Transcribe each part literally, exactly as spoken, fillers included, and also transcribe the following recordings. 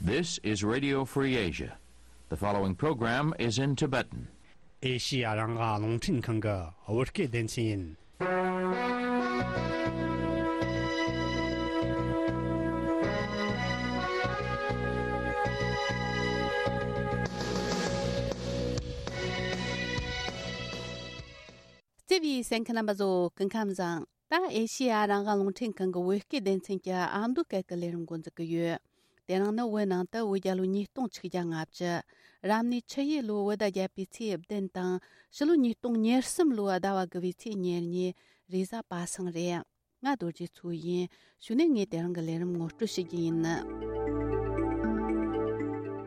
This is Radio Free Asia. The following program is in Tibetan. ཨེ་ཤི་ཡ་རང་དབང་རླུང་འཕྲིན་ཁང་གི་བོད་སྐད་སྡེ་ཚན་ཡིན། བརྩེ་བའི་གསན་མཁན་རྣམ་པ་ཚོ་སྐུ་ཁམས་བཟང་། ད་ཨེ་ཤི་ཡ་རང་དབང་རླུང་འཕྲིན་ཁང་གི་བོད་སྐད་སྡེ་ཚན་གྱི་ཨ་མདོ་སྐད་ཀྱི་ལས་རིམ་འགོ་འཛུགས་ཀྱི་ཡོད། དེ་རིང་ནི་བོད་ནང་དུ་བོད་རྒྱལ་ལོ་ཉིས་སྟོང་ཆིག་བརྒྱ་ལྔ་བཅུ། རབ་གནས་ཆུ་ཡོས་ལོའི་བོད་ཟླ་བརྒྱད་པའི་ཚེས་བདུན་དང་། ཕྱི་ལོ་ཉིས་སྟོང་ཉེར་གསུམ་ལོའི་ཟླ་བ་དགུ་བའི་ཚེས་ཉེར་གཉིས། རེས་གཟའ་པ་སངས་རེད། ང་རྡོ་རྗེ་མཚོ་ཡིན། གཞུག་ནས་ངས་དེ་རིང་གི་ལས་རིམ་ངོ་སྤྲོད་ཞུ་རྒྱུ་ཡིན།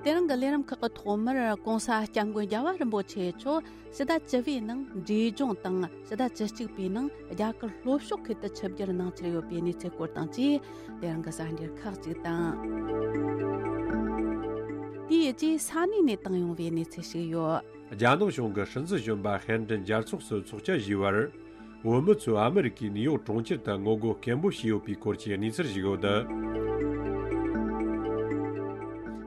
དེ་རིང་གི་ལས་རིམ་ཁག་གི་ཐོག་མར་༸གོང་ས་༸སྐྱབས་མགོན་རྒྱལ་བ་རིན་པོ་ཆེ་མཆོག་ཕྱི་ཟླ་བཅུ་པའི་ནང་འབྲས་ལྗོངས་དང་། ཕྱི་ཟླ་བཅུ་གཅིག་པའི་ནང་རྒྱ་གར་ལྷོ་ཕྱོགས་ཁུལ་དུ་ཆིབས་བསྒྱུར་གནང་འཆར་ཡོད་པའི་གནས་ཚུལ་སྐོར་དང་བཅས། དེ་རིང་གི་གསར་འགྱུར་ཁག་ཅིག་དང་། དེའི་རྗེས་ས་གནས་ནས་བཏང་ཡོང་བའི་གནས་ཚུལ་ཞིག་ཡོད། རྒྱ་ནག་གཞུང་གི་སྲིད་འཛིན་གཞོན་པ་ཧན་ཀྲིན་རྒྱལ་ཚོགས་སུ་ཚོགས་བཅར་ཞུས་པར། བོད་མི་ཚོས་ཨ་མི་རི་ཀའི་ནིའུ་ཡོག་གྲོང་ཁྱེར་དུ་ངོ་རྒོལ་སྐད་འབོད་བྱས་ཡོད་པའི་སྐོར་གྱི་གནས་ཚུལ་ཞིག་ཡོད།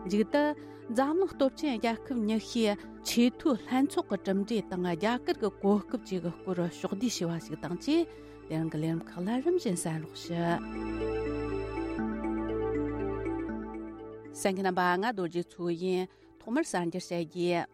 མཇུག་ཏུ། འཛམ་གླིང་སྟོབས་ཆེན་རྒྱལ་ཁབ་ཉི་ཤུའི་ཆེས་མཐོའི་ལྷན་ཚོགས་ཀྱི་གྲུབ་འབྲས་དང་། རྒྱ་གར་གྱི་གོ་སྐབས་བཅས་ཀྱི་སྐོར་ཕྱོགས་བསྡུས་ཞུ་བ་ཞིག་དང་བཅས། དེ་རིང་གི་ལས་རིམ་ཁག་ལ་རིམ་བཞིན་གསན་རོགས་ཞུ། གསན་མཁན་རྣམ་པ། ང་རྡོ་རྗེ་མཚོ་ཡིན། ཐོག་མར་གསར་འགྱུར་བཤད་རྒྱུ།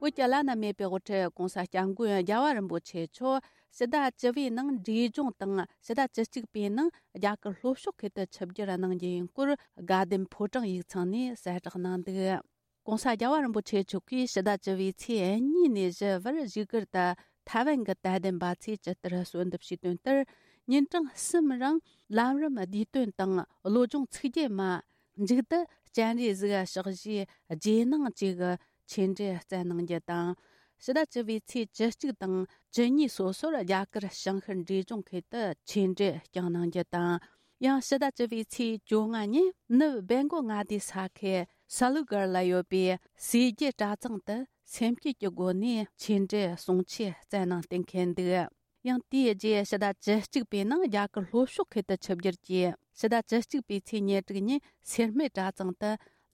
བོད་ཀྱི་བླ་ན་མེད་པའི་དབུ་ཁྲིད་༸གོང་ས་༸སྐྱབས་མགོན་རྒྱལ་བ་རིན་པོ་ཆེ་མཆོག་ཕྱི་ཟླ་བཅུ་པའི་ནང་འབྲས་ལྗོངས་དང་། ཕྱི་ཟླ་བཅུ་གཅིག་པའི་ནང་རྒྱ་གར་ལྷོ་ཕྱོགས་ཁུལ་དུ་ཆིབས་བསྒྱུར་གནང་རྒྱུ་ཡིན་སྐོར། དགའ་ལྡན་ཕོ་བྲང་ཡིག་ཚང་ནས་གསལ་བསྒྲགས་གནང་འདུག ༸གོང་ས་༸རྒྱལ་བ་རིན་པོ་ཆེ་མཆོག་གིས་ཕྱི་ཟླ་བཅུ་པའི་ཚེས་གཉིས་ནས་བཞི་བར་བཞུགས་སྒར་དུ་ཐའེ་ཝན་གྱི་དད་ལྡན་པ་ཚོས་ཇི་ལྟར་གསོལ་འདེབས་ཞུས་དོན་ལྟར། ཉིན་གྲངས་གསུམ་རིང་ལམ་རིམ་བསྡུས་དོན་དང་བློ་སྦྱོང་ཚིག་བརྗོད་མ། མཇུག་ཏུ་སྤྱན་རས་གཟིགས་ཕྱག་བཞེས་རྗེས་གནང་བཅས་ཀྱི་ཆོས་འབྲེལ་སྩལ་གནང་རྒྱུ་དང་། ཕྱི་ཟླ་བཅུ་པའི་ཚེས་བཅུ་གཅིག་དང་བཅུ་གཉིས་སོ་སོར་རྒྱ་གར་ཞིང་ཤར་འབྲས་ལྗོངས་ཁུལ་དུ་ཆོས་འབྲེལ་བསྐྱངས་གནང་རྒྱུ་དང་། ཡང་ཕྱི་ཟླ་བཅུ་པའི་ཚེས་བཅོ་ལྔ་ཉིན་ནུབ་སྦེལ་ཀོབ་མངའ་སྡེའི་ས་ཁུལ་སཱ་ལུ་གར་ལ་ཡོད་པའི་སེར་སྐྱའི་གྲྭ་ཚང་དུ་སེམས་བསྐྱེད་ཀྱི་སྒོ་ནས་ཆོས་འབྲེལ་གསུང་ཆོས་སྩལ་གནང་གཏན་འཁེལ་འདུག་ཡང་དེའི་རྗེས་ཕྱི་ཟླ་བཅུ་གཅིག་པའི་ནང་རྒྱ་གར་ལྷོ་ཕྱོགས་ཁུལ་དུ་ཆིབས་བསྒྱུར་གྱིས། ཕྱི་ཟླ་བཅུ་གཅིག་པའི་ཚེས་ཉེར་དྲུག་ཉིན་སེར་སྨད་གྲྭ་ཚང་དུ་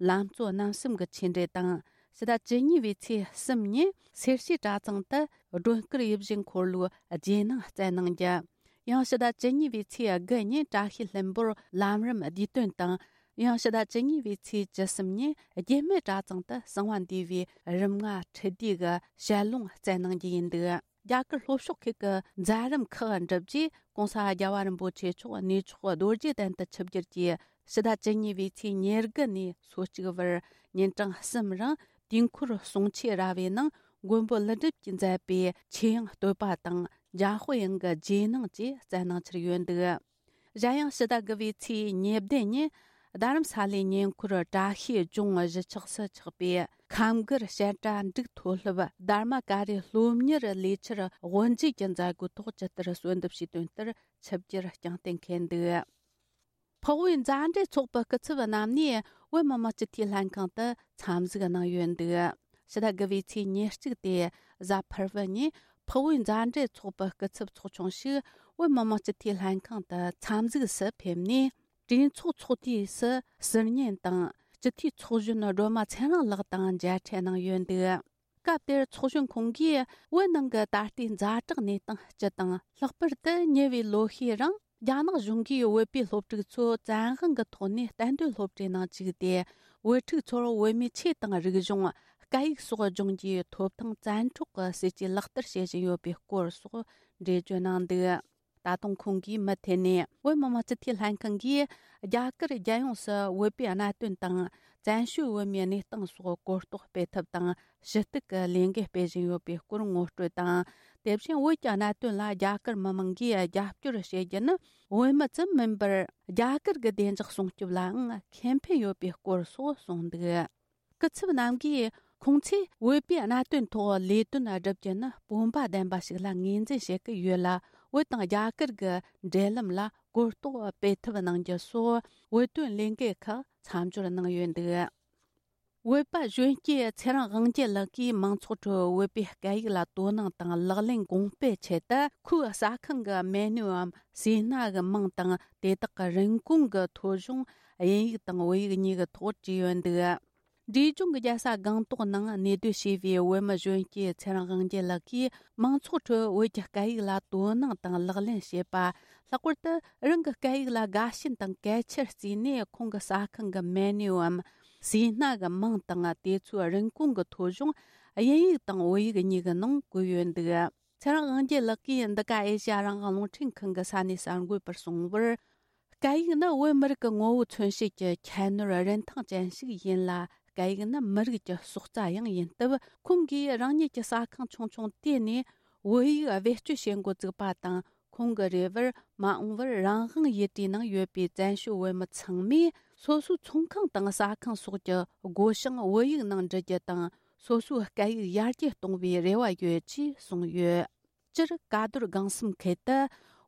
ལམ་གཙོ་རྣམ་གསུམ་གྱི་ཆོས་འབྲེལ་དང་། ཕྱི་ཟླ་བཅུ་གཉིས་པའི་ཚེས་གསུམ་ཉིན་སེར་བྱེས་གྲྭ་ཚང་དུ་སྒྲོལ་དཀར་ཡིད་བཞིན་འཁོར་ལོའི་རྗེས་གནང་སྩལ་གནང་རྒྱུ། ཡང་ཕྱི་ཟླ་བཅུ་གཉིས་པའི་ཚེས་དགུ་ཉིན་བཀྲ་ཤིས་ལྷུན་པོར་ལམ་རིམ་བསྡུས་དོན་དང་། ཡང་ཕྱི་ཟླ་བཅུ་གཉིས་པའི་ཚེས་བཅུ་གསུམ་ཉིན་རྒྱུད་སྨད་གྲྭ་ཚང་དུ་གསང་བ་འདུས་པའི་རིམ་ལྔ་ཁྲི་བདུས་ཀྱི་ཞལ་ལུང་སྩལ་གནང་རྒྱུ་ཡིན་འདུག་རྒྱ་གར་ལྷོ་ཕྱོགས་ཁུལ་གྱི་མཛད་རིམ་ཁག་འགྲུབ་རྗེས། ༸གོང་ས་༸རྒྱལ་བ་རིན་པོ་ཆེ་མཆོག་གནས་མཆོག་རྡོ་རྗེ་གདན་དུ་ཆིབས་བསྒྱུར་གྱིས། ཕྱི་ཟླ་བཅུ་གཉིས་པའི་ཚེས་ཉེར་དགུ་ནས་སོ་གཅིག་བར་ཉིན་གྲངས་གསུམ་རིང་དུས་འཁོར་གསུང་ཆོས་ར་བའི་ནང་མགོན་པོ་ཀླུ་སྒྲུབ་ཀྱིས་མཛད་པའི་ཆོས་དབྱིངས་བསྟོད་པ་དང་འཇམ་དཔལ་དབྱངས་ཀྱི་རྗེས་གནང་བཅས་སྩལ་གནང་འཆར་ཡོད་འདུག་གཞན་ཡང་ཕྱི་ཟླ་དགུ་པའི་ཚེས་ཉེར་བདུན་ཉིན་རྡ་རམ་ས་ལའི་ཉེ་འཁོར་བཀྲ་ཤིས་ལྗོངས་གཞིས་ཆགས་སུ་ཆགས་པའི་ཁམས་སྒར་བཤད་གྲྭ་འབྲུག་མཐོ་སློབ་དྷརྨ་ཀ་རི་སློབ་གཉེར་ལས་འཆར་དབུ་འབྱེད་ཀྱི་མཛད་སྒོའི་ཐོག་ཇི་ལྟར་གསོལ་འདེབས་ཞུས་དོན་ལྟར་ཆིབས་བསྒྱུར་བསྐྱངས་གཏན་འཁེལ་འདུག་འཕགས་བོད་མཛའ་འབྲེལ་ཚོགས་པའི་སྐུ་ཚབ་རྣམ་པས་བོད་མི་མང་སྤྱི་འཐུས་ལྷན་ཁང་དུ་འཚམས་གཟིགས་གནང་ཡོད་འདུག་ཕྱི་ཟླ་དགུ་པའི་ཚེས་ཉེར་གཅིག་སྟེ་གཟའ་ཕུར་བུ་ཉིན་འཕགས་བོད་མཛའ་འབྲེལ་ཚོགས་པའི་སྐུ་ཚབ་ཚོགས་ཆུང་ཞིག་བོད་མི་མང་སྤྱི་འཐུས་ལྷན་ཁང་དུ་འཚམས་གཟིགས་སུ་ཕེབས་ནས། གྲོས་ཚོགས་ཚོགས་དུས་སུ་ཟུར་ཉན་དང་སྤྱི་འཐུས་ཚོགས་གཞོན་སྒྲོལ་མ་ཚེ་རིང་ལགས་དང་མཇལ་འཕྲད་གནང་ཡོད་འདུག་སྐབས་དེར་ཚོགས་གཞོན་ཁོང་གིས་བོད་ནང་གི་ད་ལྟའི་ཛ་དྲག་གནས་སྟངས་སྤྱི་དང་། ལྷག་པར་དུ་ཉེ་བའི་ལོ་ཤས་རིང་རྒྱ་ནག་གཞུང་གིས་བོད་པའི་སློབ་ཕྲུག་ཚོ་བཙན་དབང་གི་ཐོག་ནས་གཏན་སྡོད་སློབ་གྲྭའི་ནང་བཅུག་སྟེ། བོད་ཕྲུག་ཚོར་བོད་མིའི་ཆོས་དང་རིག་གཞུང་། སྐད་ཡིག་སོགས་སྦྱོང་རྒྱུའི་ཐོབ་ཐང་བཙན་འཕྲོག་གི་སྲིད་ཇུས་ལག་བསྟར་བྱེད་བཞིན་ཡོད་པའི་སྐོར་སོགས་འགྲེལ་བརྗོད་གནང་འདུག་ད་དུང་ཁོང་གིས་མུ་མཐུད་ནས་བོད་མི་མང་སྤྱི་འཐུས་ལྷན་ཁང་གིས་རྒྱ་གར་རྒྱལ་ཡོངས་སུ་བོད་པའི་གནད་དོན་དང་། བཙན་བྱོལ་བོད་མིའི་གནས་སྟངས་སོགས་གོ་རྟོགས་སྤེལ་ཐབས་དང་ཞུ་གཏུག་གི་ལས་འགུལ་སྤེལ་བཞིན་ཡོད་པའི་སྐོར་ངོ་སྤྲོད་དང་། དེ་བཞིན་བོད་ཀྱི་གནད་དོན་ལ་རྒྱ་གར་མི་མང་གིས་རྒྱབ་སྐྱོར་བྱེད་རྒྱུ་ནི་བོད་མི་ཙམ་མིན་པར། རྒྱ་གར་གྱི་བདེ་འཇགས་སྲུང་སྐྱོབ་ལའང་ཁེ་ཕན་ཡོད་པའི་སྐོར་སོགས་གསུངས་འདུག་སྐུ་ཚབ་རྣམ་གྱིས་ཁོང་ཚོས་བོད་པའི་གནད་དོན་ཐོག་ལས་དོན་བསྒྲུབ་རྒྱུ་ནི་སྤོབས་པ་ལྡན་པ་ཞིག་ལ་ངོས་འཛིན་བྱེད་ཀྱི་ཡོད་ལ། བོད་དང་རྒྱ་གར་གྱི་འབྲེལ་ལམ་ལ་གོ་རྟོགས་སྤེལ་ཐབས་གནང་རྒྱུ་སོགས་བོད་དོན་ལས་འགུལ་ཁག་མཚམས་སྦྱོར་གནང་ཡོད་འདུག་བོད་པ་གཞོན་སྐྱེས་ཚེ་རིང་དབང་རྒྱལ་ལགས་ཀྱིས་མང་ཚོགས་ཁྲོད་བོད་པའི་སྐད་ཡིག་ལ་དོ་སྣང་དང་ལག་ལེན་གོང་སྤེལ་ཆེད་དུ། ཁོའི་ཟ་ཁང་གི་མེ་ནུའམ་ཟས་སྣ་གི་མིང་དང་། དེ་དག་གི་རིན་གོང་གི་ཐོ་གཞུང་ དབྱིན་ཡིག་དང་བོད་ཡིག་གཉིས་ཀྱི་ཐོག་བྲིས་ཡོད་འདུག་འབྲས་ལྗོངས་ཀྱི་རྒྱལ་ས་སྒང་ཏོག་ནང་གནས་སྡོད་བྱས་པའི་བོད་མི་གཞོན་སྐྱེས་ཚེ་རིང་དབང་རྒྱལ་ལགས་ཀྱིས་མང་ཚོགས་ཁྲོད་བོད་ཀྱི་སྐད་ཡིག་ལ་དོ་སྣང་དང་ལག་ལེན་བྱེད་པ། ལྷག་པར་དུ་རང་གི་སྐད་ཡིག་ལ་དགའ་ཞེན་དང་གལ་ཆེར་བརྩིས་ནས། ཁོང་གི་ཟ་ཁང་གི་མེ་ནུའམ་ཟས་སྣ་གི་མིང་དང་དེ་ཚོའི་རིན་གོང་གི་ཐོ་གཞུང་དབྱིན་ཡིག་དང་བོད་ཡིག་གཉིས་ཀྱི་ནང་བཀོད་ཡོད་འདུག་ཚེ་རིང་དབང་རྒྱལ་ལགས་ཀྱིས་འདི་ག་ཨེ་ཤ་ཡ་རང་དབང་རླུང་འཕྲིན་ཁང་གི་ས་གནས་གསར་འགོད་པར་གསུངས་པར། སྐད་ཡིག་ནི་བོད་མི་རིགས་ཀྱི་ངོ་བོ་མཚོན་བྱེད་ཀྱི་ཁྱད་ནོར་རིན་ཐང་ཅན་ཞིག་ཡིན་ལ། སྐད་ཡིག་ནི་མི་རིགས་ཀྱི་སྲོག་རྩ་ཡང་ཡིན་སྟབས། ཁོང་གིས་རང་ཉིད་ཀྱི་ཟ་ཁང་ཆུང་ཆུང་དེ་ནས་བོད་ཡིག་བེད་སྤྱོད་བྱེད་འགོ་བཙུགས་པ་དང་། ཁོང་གི་རེ་བར་མ་འོངས་པར་རང་དབང་ཡུལ་གྲུའི་ནང་ཡོད་པའི་བཙན་བྱོལ་བོད་མི་ཚང་མས་སོ་སོའི་ཚོང་ཁང་དང་ཟ་ཁང་སོགས་ཀྱི་སྒོ་བྱང་བོད་ཡིག་ནང་འབྲི་རྒྱུ་དང་། སོ་སོའི་སྐད་ཡིག་ཡར་རྒྱས་གཏོང་བའི་རེ་བ་ཡོད་ཅེས་གསུངས་ཡོད། སྤྱིར་ཀ་རྡོར་སྒང་གསུམ་ཁུལ་དུ་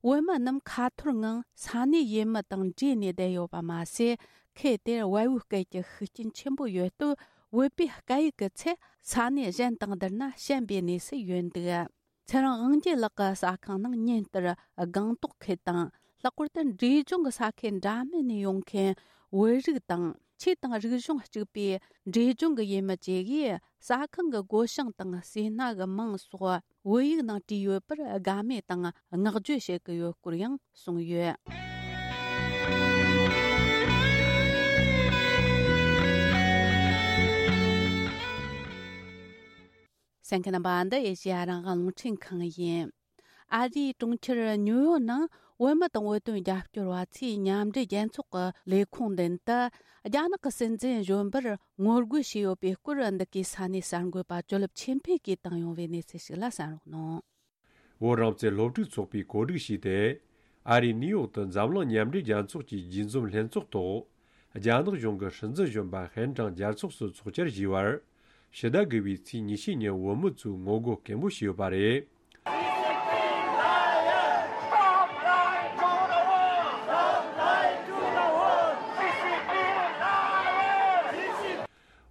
བོད་མི་རྣམས་ཁ་ཐོར་ངང་ས་གནས་ཡུལ་མི་དང་འདྲེས་ནས་བསྡད་ཡོད་པ་མ་ཟད། ཁུལ་དེར་བལ་བོའི་སྐད་ཀྱི་ཤུགས་རྐྱེན་ཆེན་པོ་ཡོད་སྟབས། བོད་པའི་སྐད་ཡིག་གི་ཚད་ས་གནས་གཞན་དང་བསྡུར་ན་ཞན་པའི་གནས་སུ་ཡོད་འདུག་ཚེ་རིང་དབང་རྒྱལ་ལགས་ཀྱི་ཟ་ཁང་ནང་ཉིན་ལྟར་སྒང་ཏོག་ཁུལ་དང་། ལྷག་པར་དུ་འབྲས་ལྗོངས་ཀྱི་ས་ཁུལ་འདྲ་མིན་ནས་ཡོང་མཁན་བོད་རིགས་དང་། ཆོས་དང་རིག་གཞུང་གཅིག་པའི་འབྲས་ལྗོངས་ཀྱི་ཡུལ་མི་བཅས་ཀྱིས་ཟ་ཁང་གི་སྒོ་བྱང་དང་ཟས་སྣ་གི་མིང་སོགས་བོད་ཡིག་ནང་བྲིས་ཡོད་པར་དགའ་མོས་དང་བསྔགས་བརྗོད་བྱེད་ཀྱི་ཡོད་སྐོར་ཡང་གསུངས་ཡོད། གསན་མཁན་རྣམ་པ། འདི་ཨེ་ཤེ་ཡ་རང་དབང་རླུང་འཕྲིན་ཁང་ཡིན། ཨ་རིའི་གྲོང་ཁྱེར་ཉིའུ་ཡོག་ནང་བོད་མི་དང་བོད་དོན་རྒྱབ་སྐྱོར་བ་ཚོས་མཉམ་འབྲེལ་རྒྱལ་ཚོགས་ཀྱི་ལས་ཁུངས་མདུན་དུ་རྒྱ་ནག་གི་སྲིད་འཛིན་གཞོན་པར་ངོ་རྒོལ་བྱས་ཡོད་པའི་སྐོར། འདི་གའི་ས་གནས་གསར་འགོད་པ་ཇོ་ལེབ་ཆོས་འཕེལ་གྱིས་བཏང་ཡོང་བའི་གནས་ཚུལ་ཞིག་ལ་གསན་རོགས་གནང་། བོད་རང་བཙན་སློབ་ཕྲུག་ཚོགས་པས་གོ་སྒྲིག་བྱས་ཏེ། ཨ་རིའི་ནིའུ་ཡོག་ཏུ་འཛམ་གླིང་མཉམ་འབྲེལ་རྒྱལ་ཚོགས་ཀྱི་རྒྱས་འཛོམས་ལྷན་ཚོགས་ཐོག་རྒྱ་ནག་གཞུང་གི་སྲིད་འཛིན་གཞོན་པ་ཧན་ཀྲང་རྒྱལ་ཚོགས་སུ་ཚོགས་བཅར་བཞེས་པར། ཕྱི་ཟླ་དགུ་པའི་ཚེས་ཉི་ཤུ་ཉིན་བོད་མི་ཚོས་ངོ་རྒོལ་སྐད་འབོད་བྱས་ཡོད་པ་རེད།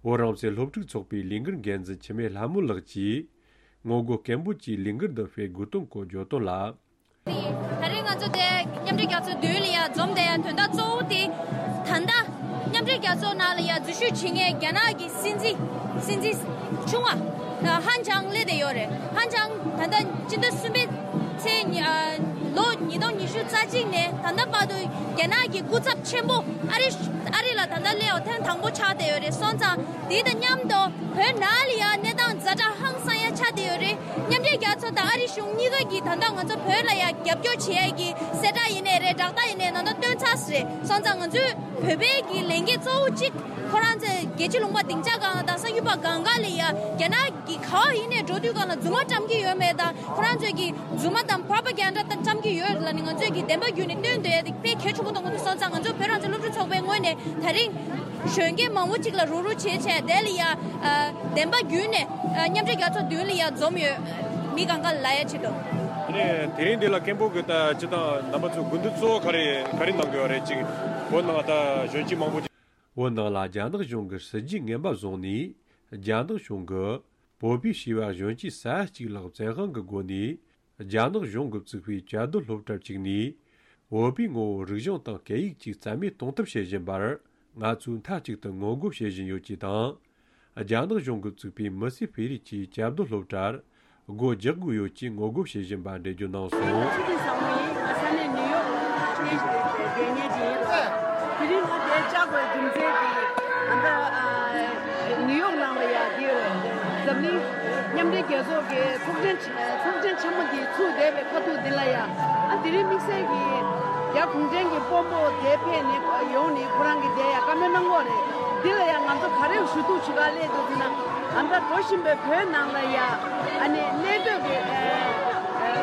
བོད་རང་བཙན་སློབ་ཕྲུག་ཚོགས་པའི་ལས་འགུལ་འགན་འཛིན་འཆི་མེད་ལྷ་མོ་ལགས་ཀྱིས། ངོ་རྒོལ་སྐད་འབོད་ཀྱིས་ལས་འགུལ་འདི་སྤེལ་དགོས་དོན་སྐོར་བརྗོད་དོན་ལ། དེ་ཡིན། ད་རེས་ང་ཚོ་དེ་མཉམ་འབྲེལ་རྒྱལ་ཚོགས་མདུན་ལ་ཡ་འཛོམས་བསྡད་ཡ་དོན་དག་གཙོ་བོ་དེ། ད་ལྟ་མཉམ་འབྲེལ་རྒྱལ་ཚོགས་ནང་ལ་ཡ་འཛུལ་ཞུགས་བྱེད་མཁན་རྒྱ་ནག་གི་སྲིད་འཛིན། སྲིད་འཛིན་ཆུང་བ་ཧན་ཅང་སླེབས་བསྡད་ཡོད་རེད། ཧན་ཅང་ད་ལྟ་སྤྱི་ཟླ་གསུམ་པའི་ཚེས་ཉི་ཨ་ལོ་ཉིས་སྟོང་ཉི་ཤུ་རྩ་གཅིག་ནས་ད་ལྟ་བར་དུ་རྒྱ་ནག་གི་སྐུ་ཚབ་ཆེན་པོ་ཨ་རི་ཨ་རི་ལ་ད་ལྟ་སླེབས་པ་ཐེངས་དང་པོ་ཆགས་བསྡད་ཡོད་རེད། སོང་ཙང་དེ་དང་མཉམ་དུ་བོད་ནང་ལ་ཡ་གནས་སྟངས་ཛ་དྲག་ཧང་སང་ཡ་ཆགས་བསྡད་ཡོད་རེད། མཉམ་འབྲེལ་རྒྱལ་ཚོགས་དང་ཨ་རི་གཞུང་གཉིས་ཀ་གིས་ད་ལྟ་ང་ཚོ་བོད་ལ་ཡ་རྒྱབ་སྐྱོར་བྱེད་ཡ་གི་གསལ་བསྒྲགས་ཡིན་ནའི་རེད། བསྒྲགས་གཏམ་ཡིན་ནའི་ད་ལྟ་བཏོན་ཚར་ཟེར་རེད། སོང་ཙང་ང་ཚོས་བོད་པའི་གི་ལས་འགན་གཙོ་བོ་གཅིག་ཁོ་རང་ཚོས་རྒྱལ་སྤྱི་ལུང་པ་སྡིངས་ཆ་སྒང་ལ་དང་གསར་འགྱུར་པ་སྒང་ག་ལ་ཡ་རྒྱ་ནག་གི་ག་བ་ཡིན་ནའི་འགྲོ་དུས་སྒང་ལ་རྫུན་མ་བཀྲམ་གྱི་ཡོད་མེད་དང་། ཁོ་རང་ཚོས་ཀྱི་རྫུན་མ་དང་པྲོ་པ་གན་ཌ་དང་བཀྲམ་གྱི་ཡོད་ལ་ནི། ང་ཚོས་ཀྱི་བདེན་པ་བརྒྱུད་ནས་སྟོན་འདོད་ཡ་དེ་དཔེ་གལ་ཆེན་པོ་མཐོང་གི་འདུག་སོང་ཙང་ང་ཚོ་བོད་རང་བཙན་སློབ་ཕྲུག་ཚོགས་པའི་ངོས་ནས་ད་རིང་གཞོན་སྐྱེས་མང་པོ་ཅིག་ལ་རོགས་རོགས་བྱས་བྱས་དེ་ལ་ཡ་ཨ་བདེན་པ་བརྒྱུད་ནས་ཨ་མཉམ་འབྲེལ་རྒྱལ་ཚོགས་མདུན་ལ་ཡ་འཛོམས་ཡོད། མི་གང་ག་ལ་ཡ་ཆེད་དུ། ཨ་ནི་དེ་རིང་འདི་ལ་སྐད་འབོད་ཀྱི་ད་སྤྱི་བཏང་རྣམ་པ་ཚོ་དགོས་འདུན་གཙོ་བོ་ག་རེ་ག་རེ་གནང་དགོས་པ་རེད། ཅིག་བོད་ནང་ད་གཞོན་སྐྱེས་མང་པོ་ཅིག་བོད་ནང་ལ་རྒྱ་ནག་གཞུང་གི་སྲིད་ཇུས་ངན་པ་བཟུང་ནས། རྒྱ་ནག་གཞུང་གིས་བོད་པའི་བྱིས་པ་གཞོན་སྐྱེས་ས་ཡ་གཅིག་ལྷག་བཙན་དབང་གི་སྒོ་ནས་རྒྱ་ནག་གཞུང་གིས་བཙུགས་པའི་བཅའ་སྡོད་སློབ་གྲྭར་བཅུག་ནས། བོད་པའི་ངོ་བོ་རིག་གཞུང་དང་སྐད་ཡིག་བཅས་རྩ་མེད་གཏོང་ཐབས་བྱེད་བཞིན་པར། ང་ཚོས་མཐའ་གཅིག་ཏུ་ངོ་རྒོལ་བྱེད་བཞིན་ཡོད་ཅེས་དང་། རྒྱ་ནག་གཞུང་གིས་བཙུགས་པའི་མི་སེར་སྤེལ་རེས་ཀྱི་བཅའ་སྡོད་སློབ་གྲྭར་སྒོ་རྒྱག་དགོས་ཡོད་ཅེས་ངོ་རྒོལ་བྱེད་བཞིན་པ་འགྲེལ་བརྗོད་གནང་སོང་། ཚེ་བརྟན་བཟང་མོ་ཡིན། ང་ས་གནས་ནིའུ་ཡོག་ལ་གནས་བསྡད་མཁན་ཅིག་ཡིན་ལ། དེ་རིང་ང་འདིར་བཅར་དགོས་རྒྱུ་མཚན་དེ་ད་ལྟ་ནིའུ་ཡོག་ནང་ལ་ཡ་འདིར་འཛམ་གླིང་མཉམ་འབྲེལ་རྒྱལ་ཚོགས་ཀྱི་ཚོགས་ཆེན་ཚོགས་ཆེན་ཆེན་མོ་འདི་ཚུགས་བསྡད་པའི་ཁ་ཐུག་འདི་ལ་ཡ། ཨ་དེ་རིང་དམིགས་བསལ་གྱི་རྒྱ་གུང་ཁྲན་གྱི་དཔོན་པོ་དེ་ཕེབས་ནས་ཡོང་ནས་ཁོ་རང་གིས་དེ་ཡ་བཀའ་མོལ་གནང་གི་ཡོད་རེད། འདི་ལ་ཡ་ང་ཚོ་ག་རེ་ཞུ་གཏུག་བྱེད་ག་སླེབས་འདུག་ཟེར་ན། ཨ་ད་འགྲོ་བཞིན་པའི་བོད་ནང་ལ་ཡ་ཨ་ནི་གནས་སྡོད་ཀྱི་ཨ་ཨ་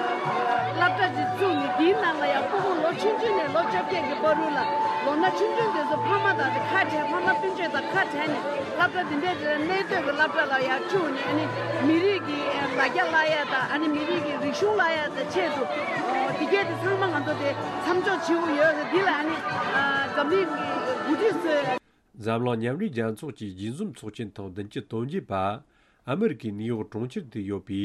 སློབ་གྲྭ་ཅིག་བཙུགས་ནས་འདིའི་ནང་ལ་ཡ་ཕྲུ་གུ་ལོ་ཆུང་ཆུང་ནས་ལོ་བཅོ་བརྒྱད་ཀྱི་བར་དུ་ལ་ལོ་ན་ཆུང་ཆུང་དེ་ཚོ་ཕ་མ་དང་དེ་ཁ་བྲལ། ཕ་མ་སྤུན་མཆེད་དང་ཁ་བྲལ་ནས་སློབ་གྲྭ་འདི་འདྲའི་དེ་ལ་གནས་སྡོད་ཀྱི་སློབ་གྲྭ་ལ་ཡ་བཅུག་ནས། ཨ་ནི་མི་རིགས་ཀྱི་ལ་རྒྱ་བསླབ་ཡ་དང་། ཨ་ནི་མི་རིགས་ཀྱི་རིག་གཞུང་བསླབ་ཡ་དང་ཆེད་དུ་འདི་གས་དེ་ཚང་མ་ང་ཚོ་དེ་མཚམས་འཇོག་བྱེད་དགོས་ཡོད་རེད། འདི་ལ་ཨ་ནི་འཛམ་གླིང་གི་འགོ་ཁྲིད་ཚོས། འཛམ་གླིང་མཉམ་འབྲེལ་རྒྱལ་ཚོགས་ཀྱི་རྒྱས་འཛོམས་ཚོགས་ཆེན་ཐེངས་བདུན་ཅུ་དོན་བརྒྱད་པ་ཨ་མེ་རི་ཀའི་ནིའུ་ཡོག་གྲོང་ཁྱེར་དུ་ཡོད་པའི་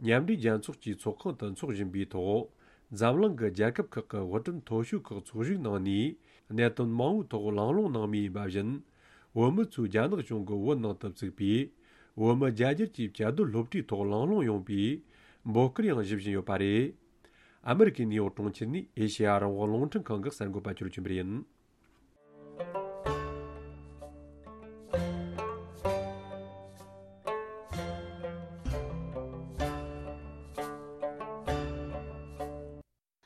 མཉམ་འབྲེལ་རྒྱལ་ཚོགས་ཀྱི་ཚོགས་ཁང་དུ་འཚོགས་བཞིན་པའི་ཐོག་འཛམ་གླིང་གི་རྒྱལ་ཁབ་ཁག་གི་བོད་དོན་མཐོ་ཤོས་ཁག་ཚོགས་ཞུགས་གནང་ནས་གནད་དོན་མང་བོའི་ཐོག་གླེང་སློང་གནང་མུས་ཡིན་པ་བཞིན། བོད་མི་ཚོས་རྒྱ་ནག་གཞུང་གི་བོད་ནང་དུ་བཙུགས་པའི་བོད་མི་རྒྱ་སྒྱུར་གྱི་བཅའ་སྡོད་སློབ་གྲྭའི་ཐོག་གླེང་སློང་ཡོང་པའི་འབོད་སྐུལ་ཡང་ཞུ་བཞིན་ཡོད་པ་རེད། ཨ་མི་རི་ཀའི་ནིའུ་ཡོག་གྲོང་ཁྱེར་ནས་ཨེ་ཤེ་ཡ་རང་དབང་རླུང་འཕྲིན་ཁང་གི་གསར་འགོད་པ་ཆོས་སྒྲོན་ཆོས་འཕེལ་ཡིན།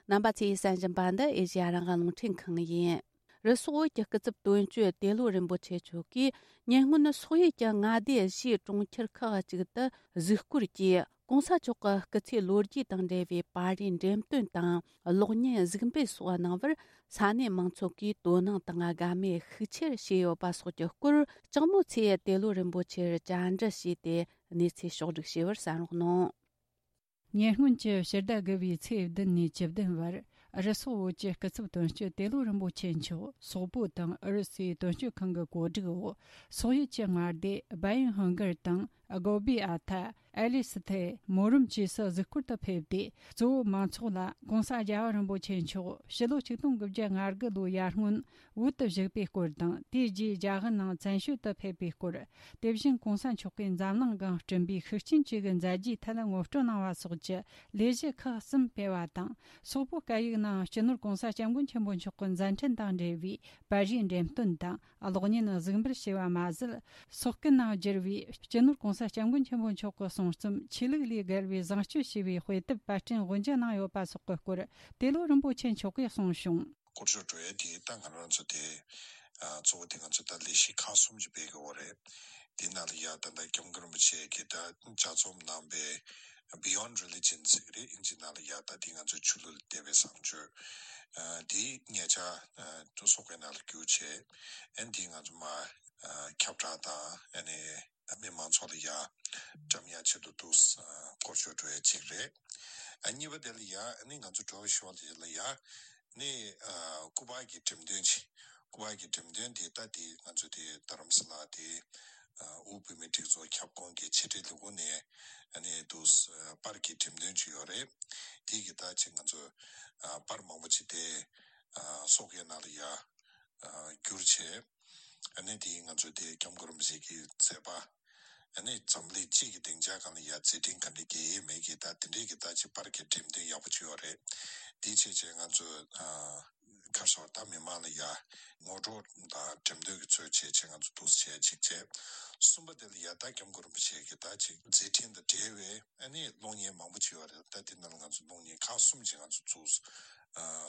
རྣམ་པ་ཚོས་གསན་བཞིན་པ་འདི་ཨེ་ཤེ་ཡ་རང་དབང་རླུང་འཕྲིན་ཁང་ཡིན། རུ་སོག་བོད་ཀྱི་སྐུ་ཚབ་དོན་གཅོད་ཏེ་ལོ་རིན་པོ་ཆེ་མཆོག་གིས་ཉེ་སྔོན་སོག་ཡུལ་གྱི་མངའ་སྡེ་བཞིའི་གྲོང་ཁྱེར་ཁག་ཅིག་ཏུ་གཟིགས་སྐོར་གྱིས་༸གོང་ས་མཆོག་གི་སྐུ་ཚེའི་ལོ་རྒྱུས་དང་འབྲེལ་བའི་པར་རིས་འགྲེམས་སྟོན་དང་གློག་བརྙན་གཟིགས་འབུལ་སོགས་གནང་བར་ས་གནས་མང་ཚོགས་ཀྱིས་དོ་སྣང་དང་དགའ་མོས་ཤུགས་ཆེར་བྱས་ཡོད་པ་སོགས་ཀྱི་སྐོར་ལྕགས་མོ་ཚེ་ཏེ་ལོ་རིན་པོ་ཆེར་བཅར་འདྲི་བྱས་ཏེ་གནས་ཚུལ་ཕྱོགས་བསྒྲིགས་བྱས་པར་གསན་རོགས་གནང་། ཉེ་སྔོན་གྱི་ཕྱི་ཟླ་དགུ་བའི་ཚེས་བདུན་ནས་བཅུ་བདུན་བར་རུ་སོག་བོད་ཀྱི་སྐུ་ཚབ་དོན་གཅོད་ཏེ་ལོ་རིན་པོ་ཆེ་མཆོག་སོག་པོ་དང་ཨུ་རུ་སུའི་དོན་གཅོད་ཁང་གི་གོ་སྒྲིག་འོག་སོག་ཡུལ་གྱི་མངའ་སྡེ་བཱ་ཡིན་ཧོང་གར་དང་སྒོ་བི་ཨ་ཐ། ཨེ་ལི་སི་ཐེ། མོ་རོམ་བཅས་སུ་གཟིགས་སྐོར་དུ་ཕེབས་ཏེ། གཙོ་བོ་མང་ཚོགས་ལ་༸གོང་ས་རྒྱལ་བ་རིན་པོ་ཆེ་མཆོག་ཕྱི་ལོ་ཆིག་སྟོང་དགུ་བརྒྱ་ང་དགུ་ལོའི་ཡར་སྔོན་བོད་དུ་བཞུགས་པའི་སྐོར་དང་། དེའི་རྗེས་རྒྱ་གར་ནང་བཙན་བྱོལ་དུ་ཕེབས་པའི་སྐོར། དེ་བཞིན་༸གོང་ས་མཆོག་གིས་འཛམ་གླིང་སྒང་བསྐྲུན་པའི་ཤུགས་རྐྱེན་བཅས་ཀྱི་མཛད་རྗེས་ཐད་ངོ་སྤྲོད་གནང་བ་སོགས་ཀྱི་ལས་གཞི་ཁག་གསུམ་སྤེལ་བ་དང་། སོག་པོ་སྐད་ཡིག་ནང་སྤྱི་ནོར་༸གོང་ས་༸སྐྱབས་མགོན་ཆེན་པོ་མཆོག་གི་མཛད་འཕྲིན་དང་འབྲེལ་བའི་པར་རིས་འགྲེམས་སྟོན་དང་གློག་བརྙན་གཟིགས་འབུལ་བྱས་པ་མ་ཟད། སོག་སྐད་ནང་བསྒྱུར་བའི་སྤྱི་ནོར་༸གོང་ས་༸སྐྱབས་མགོན་ཆེན་པོ་མཆོག་གི་གསུང་རྩོམ་ཆོས་ལུགས་ལས་བརྒལ་བའི་བཟང་སྤྱོད་ཞེས་པའི་དཔེ་དེབ་པར་སྐྲུན་དབུ་འབྱེད་གནང་ཡོད་པ་སོགས་ཀྱི་སྐོར་ཏེ་ལོ་རིན་པོ་ཆེ་མཆོག་གིས་གསུངས་བྱུང་། སྐོར་སྐྱོད་འགྲོ་ཡས་དེ་ད་ང་རང་ཚོ་དེ་གཙོ་བོ་དེ་ང་ཚོ་ད་ལས་གཞི་ཁག་གསུམ་ཅིག་སྤེལ་གི་ཡོད་རེད། དེ་ནང་ལ་ཡ་ད་ལྟ་སྐྱབས་མགོན་རིན་པོ་ཆེ་གིས་ད་ལྗགས་རྩོམ་གནང་པའི་Beyond Religion ཟེར་གི་རེད། ཨིན་ཇི་ནང་ལ་ཡ་ད་དེ་ང་ཚོ་ཆོས་ལུགས་ལ་དད་པའི་བཟང་སྤྱོད་དེ་ཉེ་ཆར་དུ་སོག་པོའི་ནང་ལ་བསྒྱུར་བྱས། ཨན་དེ་ང་ཚོ་མ་ཁྱབ་བསྒྲགས་དང་ཨ་ནི་མི་མང་ཚོགས་ལ་ཡ་བཀྲམ་ཡ་ཆེད་དུ་འདུག་སྐོར་སྐྱོད་འགྲོ་ཡ་གཅིག་རེད། ཨ་གཉིས་པ་དེ་ལ་ཡ་ཨ་ནི་ང་ཚོ་འགྲོ་བའི་ཞོར་དེ་ལ་ཡ་ནི་སྐུ་པར་གྱི་འགྲེམས་སྟོན་ཅིག་སྐུ་པར་གྱི་འགྲེམས་སྟོན་དེ་ད་དེ་ང་ཚོ་དེ་རྡ་རམ་ས་ལ་དེ་དབུས་བོད་མིའི་སྒྲིག་འཛུགས་ཁྱབ་ཁོངས་ཀྱི་ཕྱི་དྲིལ་ལས་ཁུངས་ནས་ཨ་ནི་འདུག་པར་གྱི་འགྲེམས་སྟོན་ཅིག་ཡོད་རེད། དེ་གི་ད་ཅིག་ང་ཚོ་པར་མང་པོ་ཅིག་དེ་སོག་པོའི་ནང་ལ་ཡ་བསྒྱུར་བྱས། ཨ་ནི་དེ་ང་ཚོ་དེ་སྐྱབས་མགོན་རིན་པོ་ཆེ་གི་མཛད་པ། ཨ་ནི་འཛམ་གླིང་སྤྱི་གི་སྡིངས་ཆ་སྒང་ལ་ཡ་མཛད་འཕྲིན་ག་འདྲ་རྒྱས་ཡས་མེད་ཀྱི་ད་དེ་འདྲའི་གི་ད་ཅིག་པར་གྱི་འགྲེམས་སྟོན་ཡག་པོ་ཅིག་ཡོད་རེད། དེ་བྱས་བྱས་ང་ཚོ་ཁ་སོར་ད་མི་མང་ལ་ཡ་ངོ་སྤྲོད་དང་འགྲེམས་སྟོན་གྱི་ཚུལ་བྱས་བྱས་ང་ཚོ་འདུག་སེ་བྱས་ཅིག་བྱས། གསུམ་པ་དེ་ལ་ཡ་ད་སྐྱབས་མགོན་རིན་པོ་ཆེ་གི་ད་ཅིག་མཛད་འཕྲིན་དང་འབྲེལ་བའི་ཨ་ནི་གློག་བརྙན་མང་པོ་ཅིག་ཡོད་རེད། ད་དེ་ནང་ལ་ང་ཚོ་གློག་བརྙན་ཁག་གསུམ་ཅིག་ང་ཚོ་འདུག་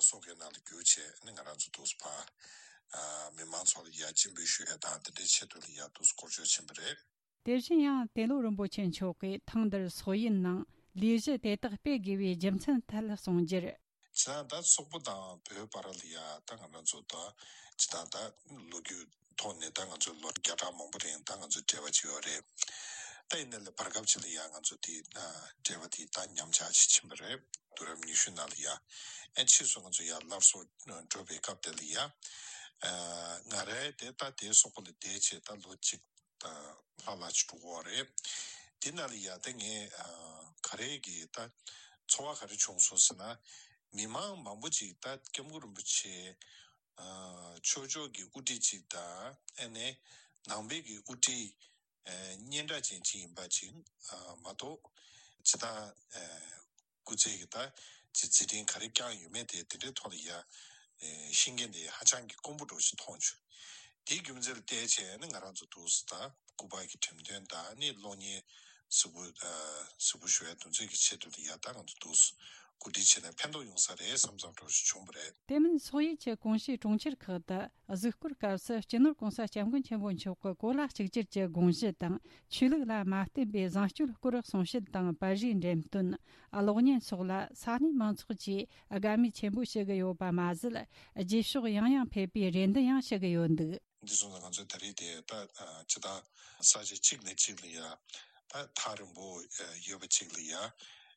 སོག་པོའི་ནང་ལ་བསྒྱུར་བྱས་ཨ་ནི་ང་རང་ཚོ་འདུག་སེ་ཕར་མི་མང་ཚོ་ལ་ཡ་སྤྱན་འབུལ་ཞུ་ཡ་དང་དེ་འདྲའི་ཆེད་དུ་ལ་ཡ་འདུག་སེ་སྐོར་སྐྱོད་ཕྱིན་པ་རེད། དེ་བཞིན་ཡང་ཏེ་ལོ་རིན་པོ་ཆེ་མཆོག་གིས་ཐེངས་འདིར་སོག་ཡུལ་ནང་ལས་གཞི་དེ་དག་སྤེལ་དགོས་པའི་རྒྱུ་མཚན་ཐད་གསུངས་རྒྱུར། ཇི་ལྟར་ད་སོག་པོ་དང་བོད་བར་ལ་ཡ་ད་ང་རང་ཚོ་ད་ཇི་ལྟར་ད་ལོ་རྒྱུས་ཐོག་ནས་ད་ང་ཚོ་ལོ་བརྒྱ་ཕྲག་མང་པོ་རིང་ད་ང་ཚོ་འབྲེལ་བ་ཅིག་ཡོད་རེད། ད་ཡིན་ན་ལས་བར་སྐབས་ཅིག་ལ་ཡ་ང་ཚོ་དེ་འབྲེལ་བ་དེ་ད་ཉམས་ཆག་ཅིག་ཕྱིན་པ་རེད། དུས་རབས་ཉི་ཤུ་ནང་ལ་ཡ་ཨེ་ཕྱིས་སུ་ང་ཚོ་ཡ་སླར་གསོ་འགྲོ་བའི་སྐབས་དེ་ལ་ཡ་ང་རའི་དེ་ད་དེ་སོག་པོ་ལ་བསྡད་བྱས་ད་ལོ་གཅིག་ལྷག་ལྷག་ཅིག་འགྲོ་གི་ཡོད་རེད། དེ་ནང་ལ་ཡ་ད་ངས་ག་རེ་གི་ད་ཚོར་བ་ག་རེ་བྱུང་སོང་ཟེར་ན། མི་མང་མང་པོ་ཅིག་ད་སྐྱབས་མགོན་རིན་པོ་ཆེ་ཆོས་ཕྱོགས་ཀྱི་དབུ་ཁྲིད་ཅིག་དང་ཨ་ནི་ནང་པའི་གི་དབུ་ཁྲིད་སྙན་གྲགས་ཅན་ཅིག་ཡིན་པ་ཅིག་མ་གཏོགས་ཇི་ལྟར་སྐུ་ཚེ་གི་ད་ཅིག་མཛད་འཕྲིན་ག་རེ་བསྐྱངས་ཡོད་མེད་དེ་དེ་འདྲའི་ཐོག་ལ་ཡ་ཤེས་མཁན་དེ་ཧ་ཅང་གི་དཀོན་པོ་འདྲ་ཞིག་མཐོང་བྱུང་། དེའི་རྒྱུ་མཚན་ལ་བལྟས་བྱས་ནས་ང་རང་ཚོ་འདུག་སེ་ད་སྐུ་པར་གྱི་འགྲེམས་སྟོན་དང་ནི་གློག་བརྙན་གཟིགས་འབུལ་གཟིགས་འབུལ་ཞུ་བའི་དོན་ཚན་གྱི་ཆེད་དུ་ཡ་ད་ང་ཚོ་འདུག་སེ་གོ་སྒྲིག་བྱས་ནས་ཕན་ཐོགས་ཡོང་ས་རེད་བསམ་བསམ་འདྲ་ཞིག་བྱུང་བ་རེད། དེ་མིན་སོག་ཡུལ་གྱི་ཀུང་ཤིས་གྲོང་ཁྱེར་ཁག་ཏུ་གཟིགས་སྐོར་སྐབས་སུ་སྤྱི་ནོར་༸གོང་ས་༸སྐྱབས་མགོན་ཆེན་པོ་མཆོག་གི་གོ་ལ་གཅིག་གྱུར་གྱི་དགོངས་གཞི་དང་ཆོས་ལུགས་ལ་མ་བརྟེན་པའི་བཟང་སྤྱོད་སྐོར་གསུང་བཤད་དང་པར་རིས་འགྲེམས་སྟོན། གློག་བརྙན་སོགས་ལ་ས་གནས་མང་ཚོགས་ཀྱིས་དགའ་མོས་ཆེན་པོ་བྱེད་ཀྱི་ཡོད་པ་མ་ཟད། རྗེས་ཕྱོགས་ཡང་ཡང་ཕེབས་པའི་རེ་འདུན་ཡང་ཞུ་གི་ཡོད་འདུག་འདི་སོང་ཙང་ང་ཚོས་ད་རེས་དེ་ད་ཇི་ལྟར་ས་ཆ་གཅིག་ནས་གཅིག་ལ་ཡ་ད་ཐག་རིང་པོ་ཡོད་པ་གཅིག་ལ་ཡ་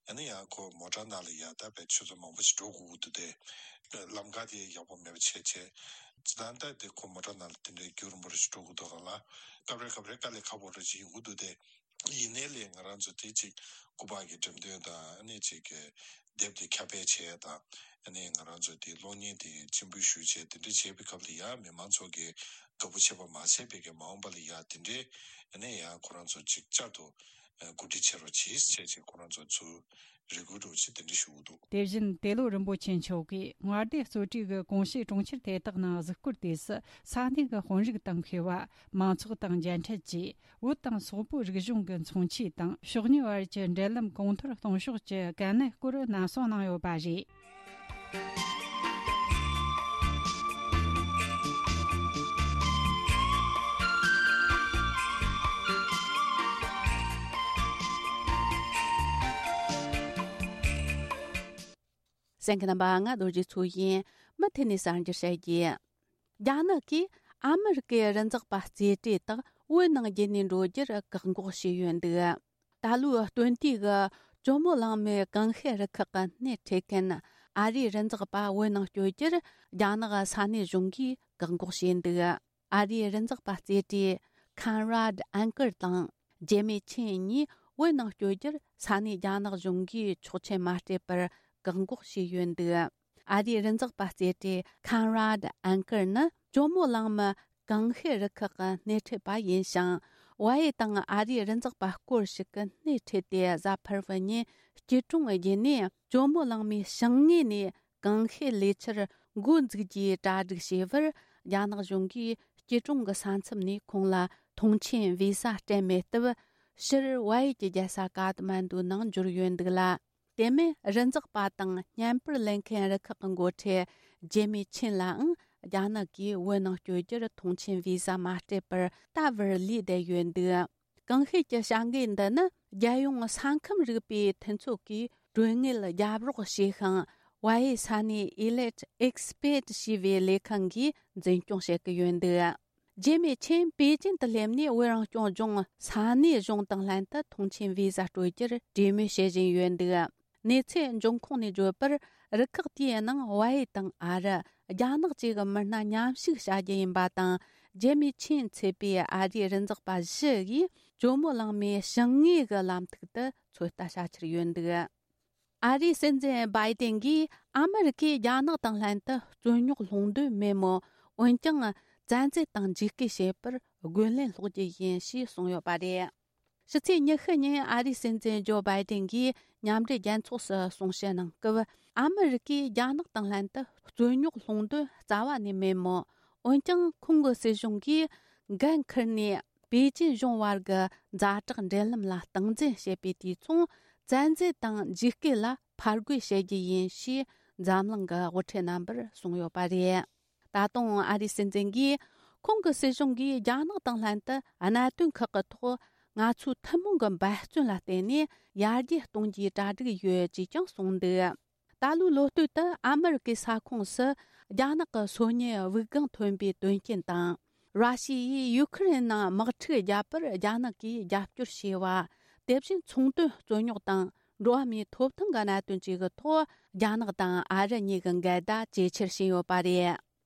ཨ་ནི་ཡང་ཁོ་མོ་ཊ་ནང་ལ་ཡ་ད་བས་ཆུ་ཚོད་མང་པོ་ཞིག་འགྲོ་དགོས་ཀྱི་འདུག་སྟེ། ལམ་ཁ་དེ་ཡག་པོ་མེད་པ་བྱས་བྱས་ཇི་ལྟར་ད་དེ་ཁོ་མོ་ཊ་ནང་ལ་དེ་འདྲའི་རྒྱུན་རིང་པོ་རེ་ཞིག་འགྲོ་དགོས་འདུག་ག་ལ་སྐབས་རེ་སྐབས་རེ་དཀའ་ལས་ཁག་པོ་རེ་ཞིག་ཡོང་གི་འདུག་སྟེ། ཡིན་ནའི་ལས་ང་རང་ཚོ་དེ་ཅིག་སྐུ་པར་གྱི་འགྲེམས་སྟོན་དང་ཨ་ནི་ཅིག་གི་ དེབ་དེ་ཁྱབ་སྤེལ་བྱེད་ཡ་དང་། ཨ་ནི་ང་རང་ཚོ་དེ་གློག་བརྙན་དེ་སྤྱན་འབུལ་ཞུ་བྱས་དེ་འདྲ་བྱས་པའི་སྐབས་ལ་ཡ་མི་མང་ཚོ་གིས་དགའ་པོ་བྱས་པ་མ་ཟད་པའི་གི་མ་འོངས་པ་ལ་ཡ་དེ་འདྲའི་ཨ་ནི་ཡ་ཁོ་རང་ཚོ་ཅིག་བསྐྱར་དུ་གོ་སྒྲིག་བྱེད་རོགས་གྱིས་བྱས་བྱས་ཁོ་རང་ཚོ་ཚུར་རེ་སྐུལ་འདྲ་བོ་ཅིག་དེ་འདྲ་ཞུ་གི་འདུག། དེ་བཞིན་ཏེ་ལོ་རིན་པོ་ཆེ་མཆོག་གིས་མངའ་སྡེ་གཙོ་གྲས་ཀྱི་གོང་ཞུས་གྲོང་ཁྱེར་དེ་དག་ནང་གཟིགས་སྐོར་དུས་སུ་ས་གནས་ཀྱི་དཔོན་རིགས་དང་མཁས་པ། མང་ཚོགས་དང་མཇལ་འཕྲད་ཀྱིས། བོད་དང་སོག་པོའི་རིག་གཞུང་གི་མཚོན་ཆས་དང་ཕྱོགས་གཉིས་བར་གྱི་འབྲེལ་ལམ་གོང་མཐོར་གཏོང་ཕྱོགས་ཀྱི་གལ་གནད་སྐོར་ནན་གསུང་གནང་ཡོད་པ་རེད། གསན་མཁན་རྣམ་པ། ང་རྡོ་རྗེ་མཚོ་ཡིན། མུ་མཐུད་ནས་གསར་འགྱུར་བཤད་རྒྱུ། རྒྱ་ནག་གིས་ཨ་མི་རི་ཀའི་རི་འཛེག་པ་རྩེ་གྲས་དག་བོད་ནང་བརྒྱུད་ནས་འགྲོ་རྒྱུར་བཀག་འགོག་བྱས་ཡོད་འདུག། ད་ལོའི་སྟོན་དུས་ཀྱི་ཇོ་མོ་གླང་མའི་ཀང་ཤེད་རུ་ཁག་གི་སྣེ་ཁྲིད་མཁན་ཨ་རིའི་རི་འཛེག་པ་བོད་ནང་བསྐྱོད་རྒྱུར་རྒྱ་ནག་ས་གནས་གཞུང་གིས་བཀག་འགོག་བྱས་འདུག། ཨ་རིའི་རི་འཛེག་པ་རྩེ་གྲས་Conrad Anker དང་ཇེ་མི་ཆིན་གཉིས་བོད་ནང་བསྐྱོད་རྒྱུར་ས་གནས་རྒྱ་ནག་གཞུང་གིས་ཆོག་མཆན་མ་སྤྲད་པར་བཀག་འགོག་བྱས་ཡོད་འདུག། ཨ་རིའི་རི་འཛེག་པ་རྩེ་གྲས་Conrad Anker ནི་ཇོ་མོ་གླང་མ་ཀང་ཤེད་རུ་ཁག་གི་སྣེ་ཁྲིད་པ་ཡིན་ཞིང་། ཝའེ་དང་ཨ་རིའི་རི་འཛེག་པ་སྐོར་ཞིག་གི་སྣེ་ཁྲིད་དེ་གཟའ་ཕུར་བུ་ཉིན་སྐྱིད་གྲོང་བརྒྱུད་ནས་ཇོ་མོ་གླང་མའི་བྱང་ངོས་ནས་ཀང་ཤེད་ལས་འཆར་འགོ་འཛུགས་རྒྱུའི་གྲ་སྒྲིག་བྱས་པར། རྒྱ་ནག་གཞུང་གིས་སྐྱིད་གྲོང་གི་ས་མཚམས་ནས་ཁོང་ལ་ཐོངས་མཆན་བི་ཟ་སྤྲད་མེད་སྟབས། ཕྱིར་ཝའེ་གྱི་རྒྱལ་ས་ཀ་ཐ་མན་ཌུ་ནང་འབྱོར་ཡོད་འདུག་ལ། དེ་མིན་རི་འཛེག་པ་དང་བརྙན་པར་ལེན་མཁན་རུ་ཁག་གི་འགོ་ཁྲིད་ཇེ་མི་ཆིན་ལའང་རྒྱ་ནག་གིས་བོད་ནང་བསྐྱོད་རྒྱུར་ཐོངས་མཆན་བི་ཟ་མ་སྤྲད་པར་ད་བར་ལུས་བསྡད་ཡོད་འདུག། ཀང་ཤེད་ཀྱི་བྱ་འགུལ་འདི་ནི་རྒྱལ་ཡོངས་ས་ཁམས་རིག་པའི་མཐུན་ཚོགས་ཀྱིས་གྲོན་དངུལ་རྒྱབ་རོགས་བྱས་ཤིང་། ཝའེ་ས་གནས་Elite Expat ཞེས་པའི་ལས་ཁང་གིས་འཛིན་སྐྱོང་བྱེད་ཀྱི་ཡོད་འདུག། ཇེ་མི་ཆིན་པེ་ཅིན་དུ་སླེབས་ནས་བོད་རང་སྐྱོང་ལྗོངས་ས་གནས་གཞུང་དང་ལྷན་དུ་ཐོངས་མཆན་བི་ཟ་སྤྲོད་རྒྱུར་གྲོས་མོལ་བྱེད་བཞིན་ཡོད་འདུག། གནས་ཚུལ་འབྱུང་ཁུངས་ནས་བརྗོད་པར། རུ་ཁག་དེའི་ནང་ཝའེ་དང་ཨ་རི། རྒྱ་ནག་བཅས་ཀྱི་མི་སྣ་མཉམ་ཞུགས་བྱ་རྒྱུ་ཡིན་པ་དང་། ཇེ་མི་ཆིན་མཚོན་པའི་ཨ་རིའི་རི་འཛེག་པ་བཞི་ཡིས་ཇོ་མོ་གླང་མའི་བྱང་ངོས་ཀྱི་ལམ་ཐིག་ཏུ་ཚོད་ལྟ་བྱ་འཆར་ཡོད་འདུག། ཨ་རིའི་སྲིད་འཛིན་བྷའི་ཏིན་གྱིས་ཨ་མི་རི་ཀས་རྒྱ་ནག་དང་ལྷན་དུ་རྩོད་རྙོག་སློང་འདོད་མེད་མོད། འོན་ཀྱང་། བཙན་འཛུལ་དང་འཇིགས་སྐུལ་བྱེད་པར་རྒོལ་ལན་སློག་རྒྱུ་ཡིན་ཞེས་གསུངས་ཡོད་པ་རེད། ཕྱི་ཚེས་ཉི་ཤུ་ཉིན་ཨ་རིའི་སྲིད་འཛིན་ཇོ་བྷའི་ཏིན་གྱིས་མཉམ་འབྲེལ་རྒྱལ་ཚོགས་སུ་གསུང་བཤད་གནང་སྐབས། ཨ་མི་རི་ཀས་རྒྱ་ནག་དང་ལྷན་དུ་རྩོད་རྙོག་སློང་འདོད་རྩ་བ་ནས་མེད་མོད། འོན་ཀྱང་། ཁོང་གི་སྲིད་གཞུང་གིས་འགན་འཁུར་ནས། པེ་ཅིན་གཞུང་བར་གྱི་ཛ་དྲག་འབྲེལ་ལམ་ལ་སྟངས་འཛིན་བྱེད་པའི་དུས་མཚུངས། བཙན་འཛུལ་དང་འཇིགས་སྐུལ་ལ་ཕར་རྒོལ་བྱེད་རྒྱུ་ཡིན་ཞེས་འཛམ་གླིང་གི་དབུ་ཁྲིད་རྣམ་པར་གསུངས་ཡོད་པ་རེད། ད་དུང་ཨ་རིའི་སྲིད་འཛིན་གྱིས། ཁོང་གི་སྲིད་གཞུང་གིས་རྒྱ་ནག་དང་ལྷན་དུ་གནད་དོན་ཁག་གི་ཐོག་ང་ཚོའི་ཐུན་མོང་གི་འབད་བརྩོན་ལ་བརྟེན་ནས་ཡར་རྒྱས་གཏོང་རྒྱུའི་གྲ་སྒྲིག་ཡོད་ཅེས་ཀྱང་གསུངས་འདུག། ད་ལོའི་ལོ་སྟོད་དུ་ཨ་མི་རི་ཀའི་ས་ཁོངས་སུ་རྒྱ་ནག་གི་སོ་ཉའི་དབུགས་ལྒང་ཐོན་པའི་དོན་རྐྱེན་དང་། ར་ཤི་ཡས་ཡུ་ཁུ་རེན་ནང་དམག་འཁྲུག་བརྒྱབ་པར་རྒྱ་ནག་གིས་རྒྱབ་སྐྱོར་བྱས་པ། དེ་བཞིན་ཚོང་དོན་རྩོད་རྙོག་དང་འགྲོ་བ་མིའི་ཐོབ་ཐང་གི་གནད་དོན་བཅས་ཀྱི་ཐོག་རྒྱ་ནག་དང་ཨ་རི་གཉིས་ཀྱི་འགལ་ཟླ་ཇེ་ཆེར་ཕྱིན་ཡོད་པ་རེད།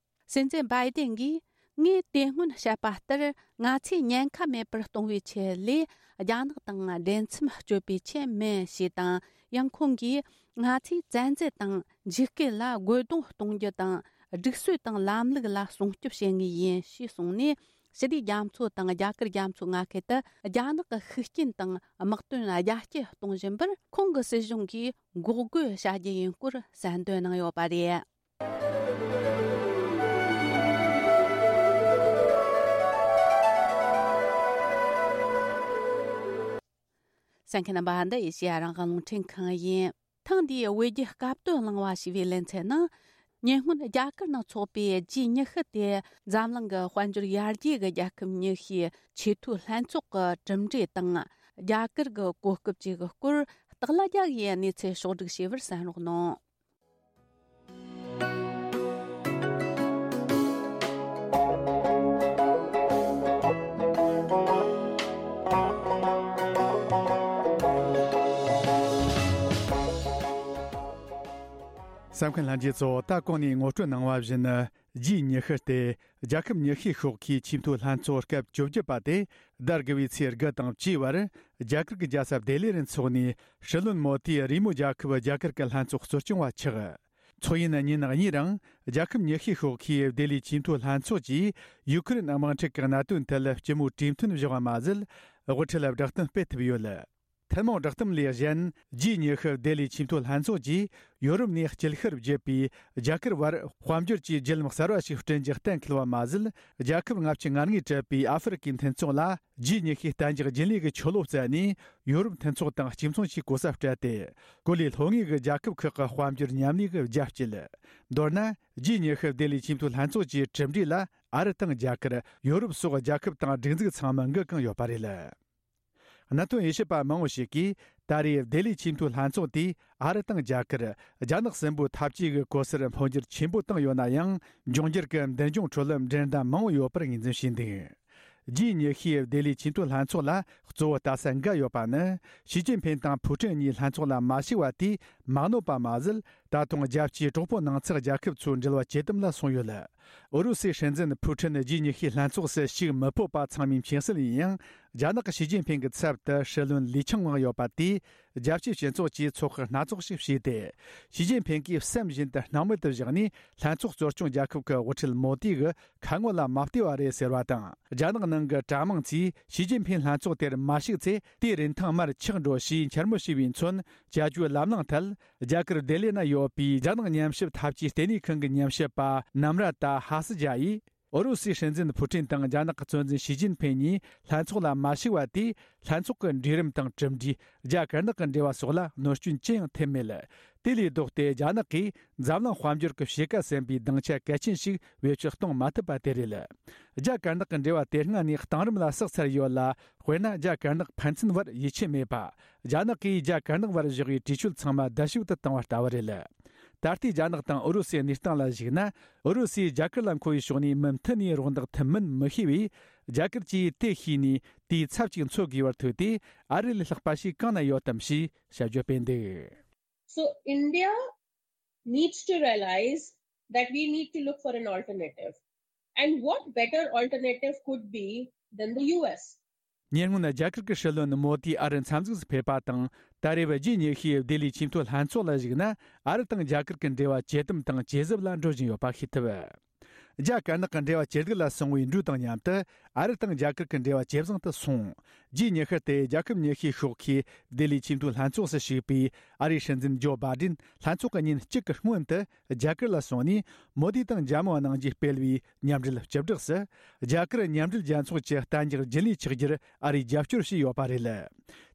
སྲིད་འཛིན་བྷའི་ཏིན་གྱིས། ངས་དེ་སྔོན་བཤད་པ་ལྟར། ང་ཚོས་ཉེན་ཁ་མེད་པར་གཏོང་བའི་ཆེད་ལས། རྒྱ་ནག་དང་འབྲེལ་མཚམས་གཅོད་པའི་ཆེད་མིན་ཞེས་དང་། ཡང་ཁོང་གིས། ང་ཚོས་བཙན་འཛུལ་དང་འཇིགས་སྐུལ་ལ་རྒོལ་རྡུང་གཏོང་རྒྱུ་དང་། སྒྲིག་སྲོལ་དང་ལམ་ལུགས་ལ་སྲུང་སྐྱོབ་བྱེད་ངེས་ཡིན་ཞེས་གསུངས་ནས། ཕྱི་དྲིལ་རྒྱ་མཚོ་དང་རྒྱ་གར་རྒྱ་མཚོའི་མངའ་ཁུལ་དུ་རྒྱ་ནག་གི་ཤུགས་རྐྱེན་དང་དམག་དོན་རྒྱ་སྐྱེད་གཏོང་བཞིན་པར། ཁོང་གི་སྲིད་གཞུང་གིས་འགོག་རྒོལ་བྱ་རྒྱུ་ཡིན་སྐོར་གསལ་འདོན་གནང་ཡོད་པ་རེད། གསན་མཁན་རྣམ་པ། འདི་ཨེ་ཤེ་ཡ་རང་དབང་རླུང་འཕྲིན་ཁང་ཡིན། ཐེངས་འདིའི་བོད་བརྒྱུད་སྐབས་དོན་གླེང་བ་ཞེས་པའི་ལེ་ཚན་ནང་། ཉེ་སྔོན་རྒྱ་གར་ནང་འཚོགས་པའི་ཇི་ཉི་ཤུ་དེ་འཛམ་གླིང་གི་དཔལ་འབྱོར་ཡར་རྒྱས་ཀྱི་རྒྱལ་ཁབ་ཉི་ཤུའི་ཆེས་མཐོའི་ལྷན་ཚོགས་ཀྱི་གྲུབ་འབྲས་དང་། རྒྱ་གར་གྱི་གོ་སྐབས་བཅས་ཀྱི་སྐོར་སྟག་ལྷ་རྒྱལ་གྱིས་གནས་ཚུལ་ཕྱོགས་བསྒྲིགས་བྱས་པར་གསན་རོགས་གནང་། གསན་མཁན་ལྷན་རྒྱས་ཚོ། ད་གོང་ནས་ངོ་སྤྲོད་གནང་བ་བཞིན། ཇུས་ཉི་ཤུ་སྟེ། རྒྱལ་ཁབ་ཉི་ཤུའི་ཤོག་ཁའི་ཆེས་མཐོའི་ལྷན་ཚོགས་སྐབས་བཅོ་བརྒྱད་པ་དེ་ཟླ་དགུ་པའི་ཚེས་དགུ་དང་བཅུའི་བར་རྒྱ་གར་གྱི་རྒྱལ་ས་ལྡི་ལི་རུ་འཚོགས་ནས། སྲིད་བློན་མོ་དིས་རེས་མོས་རྒྱལ་ཁབ་རྒྱ་གར་གྱི་ལྷན་ཚོགས་གཙོ་སྐྱོང་བ་ཆགས། ཚོགས་ཡུན་ཉིན་གཉིས་རིང་རྒྱལ་ཁབ་ཉི་ཤུའི་ཤོག་ཁའི་ལྡི་ལིའི་ཆེས་མཐོའི་ལྷན་ཚོགས་ཀྱིས་ཡུ་ཁུ་རེན་དམག་འཁྲུག་གི་གནད་དོན་ཐད་སྤྱི་མོས་གྲོས་མཐུན་བཞག་པ་མ་ཟད། དབུ་ཁྲིད་ལ་བསྒྲགས་གཏམ་སྤེལ་ཐུབ་ཡོད། ཐུན་མོང་བསྒྲགས་གཏམ་ལས་གཞན། ཇུས་ཉི་ཤུ་ལྡི་ལིའི་ཆེས་མཐོའི་ལྷན་ཚོགས་ཀྱིས་ཡོ་རོབ་ནས་སྐྱེད་ཤར་བརྒྱུད་པའི་རྒྱ་གར་བར་དཔལ་འབྱོར་གྱི་བརྒྱུད་ལམ་གསར་བ་ཞིག་བསྐྲུན་རྒྱུ་གཏན་འཁེལ་བ་མ་ཟད། རྒྱལ་ཁབ་ལྔ་བཅུ་ང་ལྔས་གྲུབ་པའི་ཨ་ཧྥེ་རི་ཁའི་མཐུན་ཚོགས་ལ་ཇུས་ཉི་ཤུའི་གཏན་འཇགས་རྒྱུན་ལས་ཀྱི་ཆོ་ལོ་བསྩལ་ནས། ཡོ་རོབ་མཐུན་ཚོགས་དང་གཅིག་མཚུངས་ཀྱི་གོ་ས་སྤྲད་དེ། གོ་ལའི་ལྷོ་ངོས་ཀྱི་རྒྱལ་ཁབ་ཁག་གི་དཔལ་འབྱོར་མཉམ་ལས་ཀྱི་རྒྱ་བསྐྱེད། མདོར་ན། ཇུས་ཉི་ཤུ་ལྡི་ལིའི་ཆེས་མཐོའི་ལྷན་ཚོགས་ཀྱི་གྲུབ་འབྲས་ལ་ཨ་རི་དང་རྒྱ་གར། ཡོ་རོབ་སོགས་རྒྱལ་ཁབ་དང་སྒྲིག་འཛུགས་ཚང་མ་འགན་བཀང་ཡོད་པ་རེད། གནད་དོན་དབྱེ་ཞིབ་པ་མང་བོ་ཞིག་གིས། ད་རེས་ལྡི་ལིའི་ཆེས་མཐོའི་ལྷན་ཚོགས་དེས་ཨ་རི་དང་རྒྱ་གར། རྒྱ་ནག་གསུམ་པོའི་འཐབ་ཇུས་ཀྱི་གོ་སར་འཕོ་འགྱུར་ཆེན་པོ་བཏང་ཡོད་ན་ཡང་། འབྱུང་འགྱུར་གྱི་མདུན་ལྗོངས་ཁྲོད་འགྲན་ཟླ་མང་བོ་ཡོད་པར་ངོས་འཛིན་བྱས་འདུག་ཇུས་ཉི་ཤུའི་ལྡི་ལིའི་ཆེས་མཐོའི་ལྷན་ཚོགས་ལ་གཙོ་བོ་ལྟ་ས་འགའ་ཡོད་པ་ནི། ཞི་ཅིན་ཕིན་དང་ཕུའུ་ཀྲིན་གཉིས་ལྷན་ཚོགས་ལ་མ་ཞུགས་པ་དེས་མ་གནོད་པ་མ་ཟད། ད་དུང་རྒྱལ་སྤྱིའི་གྲོགས་པོ་ནང་ཚགས་རྒྱལ་ཁབ་ཚོའི་འབྲེལ་བ་ཇེ་དམ་ལ་སོང་ཡོད། ཨུ་རུ་སུའི་སྲིད་འཛིན་ཕུའུ་ཀྲིན་ཇུས་ཉི་ཤུའི་ལྷན་ཚོགས་སུ་ཞུགས་མི་ཕོད་པ་ཚང་མའི་མཁྱེན་གསལ་ཡིན་ཡང་། རྒྱ་ནག་གི་ཞི་ཅིན་ཕིན་གྱི་ཚབ་ཏུ་སྲིད་བློན་ལི་ཆང་ཝང་ཡོད་པ་དེས། རྒྱལ་སྤྱིའི་སྤྱི་ཚོགས་ཀྱིས་ཚོགས་ཁག་སྣ་ཚོགས་ཤིག་བྱས་ཏེ། ཞི་ཅིན་ཕིན་གྱིས་བསམ་བཞིན་དུ་སྣང་མེད་དུ་བཞག་ནས། ལྷན་ཚོགས་གཙོ་སྐྱོང་རྒྱལ་ཁབ་ཀྱི་དབུ་ཁྲིད་མོ་དི་གི་ཁ་ངོ་ལ་མ་བལྟས་པ་རེད་ཟེར་བ་དང་། རྒྱ་ནག་ནང་གི་དྲ་མིག་ཚོས་ཞི་ཅིན་ཕིན་ལྷན་ཚོགས་དེར་མ་ཞུགས་ཚེ། དེའི་རིན་ཐང་མར་ཆག་འགྲོ་ཞེས་འཕྱ་སྨོད་བྱས་པས་མཚོན། བྱ་སྤྱོད་ལམ་ལྷོང་ཐད། རྒྱ་གར་ལྡི་ལི་ན་ཡོད་པའི་རྒྱ་ནག་ཉམས་ཞིབ་འཐབ་ཇུས་ལྟེ་གནས་ཁང་གི་ཉམས་ཞིབ་པ་ནམ་ར་ཏཱ་ཧ་སི་ཇཱ་ཡིས། ཨུ་རུ་སུའི་སྲིད་འཛིན་ཕུ་ཀྲིན་དང་རྒྱ་ནག་གི་གཙོ་འཛིན་ཞི་ཅིན་ཕིན་གཉིས་ལྷན་ཚོགས་ལ་མ་ཞུགས་པ་དེས། ལྷན་ཚོགས་ཀྱི་འབྲས་རིམ་དང་གྲུབ་འབྲས། རྒྱ་དཀར་ནག་གི་འབྲེལ་བ་སོགས་ལ་གནོད་སྐྱོན་ཅི་ཡང་ཐེབས་མེད། དེ་ལས་ལྡོག་སྟེ། རྒྱ་ནག་གིས་འཛམ་གླིང་དཔལ་འབྱོར་གྱི་ཕྱེད་ཀ་ཟིན་པའི་སྡིངས་ཆ་གལ་ཆེན་ཞིག་བེད་སྤྱོད་གཏོང་མ་ཐུབ་པ་དེ་རེད། རྒྱ་དཀར་ནག་གི་འབྲེལ་བ་དེ་སྔ་ནས་གཏིང་རིམ་ལ་བསགས་ཚར་ཡོད་ལ། དཔེར་ན། རྒྱ་དཀར་ནག་ཕན་ཚུན་བར་ཡིད་ཆེས་མེད་པ། རྒྱ་ནག་གིས་རྒྱ་དཀར་ནག་བར་བཞག་པའི་གྲོས་ཆོད་ཚང་མ་རྡབ་གསིག་ཏུ་བཏང་བ་ལྟ་བུ་རེད། ད་ལྟའི་རྒྱ་ནག་དང་ཨུ་རུ་སུའི་གནས་སྟངས་ལ་གཞིགས་ན། ཨུ་རུ་སུས་རྒྱ་གར་ལ་མཁོ་བའི་ཕྱོགས་ནས་མུ་མཐུད་ནས་རོགས་འདེགས་ཐུབ་མིན་མི་ཤེས་པས། རྒྱ་གར་གྱིས་དེ་ཤེས་ནས་དེའི་ཚབ་ཅིག་འཚོལ་དགོས་པར་ཐུག་སྟེ། ཨ་རི་ལས་ལྷག་པ་ཞིག་གང་ན་ཡོད་དམ་ཞེས་དཔྱད་བརྗོད་སྤེལ་འདུག So India needs to realize that we need to look for an alternative. And what better alternative could be than the U S? ཉེ་སྔོན་རྒྱ་གར་གྱི་སྲིད་བློན་མོ་དི་ཨ་རི་འཚམས་གཟིགས་སུ་ཕེབས་པ་དང་། ད་རེས་ཇུས་ཉི་ཤུའི་ལྡི་ལིའི་ཆེས་མཐོའི་ལྷན་ཚོགས་ལ་གཞིགས་ན། ཨ་རི་དང་རྒྱ་གར་གྱི་འབྲེལ་བ་ཇེ་དམ་དང་ཇེ་ཟབ་ལ་འགྲོ་བཞིན་ཡོད་པ་ཤེས་ཐུབ། རྒྱ་དཀར་ནག་གི་འབྲེལ་བ་ཇེ་སྡུག་ལ་སོང་བའི་འགྲོས་དང་མཉམ་དུ། ཨ་རི་དང་རྒྱ་གར་གྱི་འབྲེལ་བ་ཇེ་བཟང་དུ་སོང་། ཇུས་ཉི་ཤུ་སྟེ། རྒྱལ་ཁབ་ཉི་ཤུའི་ཤོག་ཁའི་ལྡི་ལིའི་ཆེས་མཐོའི་ལྷན་ཚོགས་སུ་ཞུགས་པའི་ཨ་རིའི་སྲིད་འཛིན་ཇོ་བྷའི་ཌེན་ལྷན་ཚོགས་ཀྱི་ཉིན་གཅིག་གི་སྔོན་དུ། རྒྱ་གར་ལ་སོང་ནས། མོ་དི་དང་འཇམ་དབྱངས་གནང་རྒྱུའི་སྤེལ་བའི་མཉམ་འབྲེལ་སྤྱི་བསྒྲགས་སུ། རྒྱ་གར་མཉམ་འབྲེལ་རྒྱལ་ཚོགས་ཀྱི་གཏན་འཇགས་རྒྱུན་ལས་ཆགས་རྒྱུར་ཨ་རིས་རྒྱབ་སྐྱོར་བྱས་ཡོད་པ་རེད།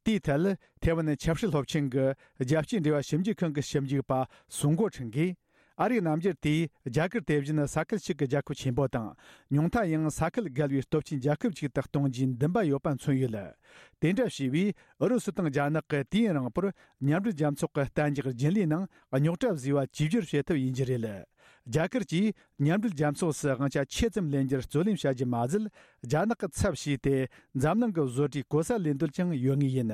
དེའི་ཐད། ཐེ་ཝན་ཆབ་སྲིད་སློབ་ཆེན་གྱི་རྒྱལ་སྤྱིའི་འབྲེལ་བ་ཞིབ་འཇུག་ཁང་གི་ཞིབ་འཇུག་པ་སུང་གོ་ཁྲིན་གྱིས། ཨ་རིའི་རྣམ་འགྱུར་དེས་རྒྱ་གར་དེ་བཞིན་ས་ཁུལ་གཅིག་གི་རྒྱལ་ཁབ་ཆེན་པོ་དང་། ཉུང་མཐའ་ཡང་ས་ཁུལ་བརྒལ་བའི་སྟོབས་ཆེན་རྒྱལ་ཁབ་ཅིག་ཏུ་གཏོང་རྒྱུའི་འདུན་པ་ཡོད་པ་མཚོན་ཡོད། དེ་འདྲ་བྱས་པས། ཨུ་རུ་སུ་དང་རྒྱ་ནག་གིས་དུས་ཡུན་རིང་པོར་མཉམ་འབྲེལ་རྒྱལ་ཚོགས་ཀྱི་གཏན་འཇགས་རྒྱུན་ལས་ནང་རྙོག་དྲ་བཟོས་པ་བཅོས་བསྒྱུར་བྱེད་ཐབས་ཡིན་རྒྱུ་རེད། རྒྱ་གར་གྱིས་མཉམ་འབྲེལ་རྒྱལ་ཚོགས་སུ་དབང་ཆ་ཆེ་ཙམ་ལེན་རྒྱུར་རྩོད་ལེན་བྱ་རྒྱུ་མ་ཟད། རྒྱ་ནག་གི་ཚབ་བྱས་ཏེ། འཛམ་གླིང་གི་བཟོ་གྲྭའི་གོ་ས་ལེན་འདོད་ཀྱང་ཡོད་ངེས་ཡིན།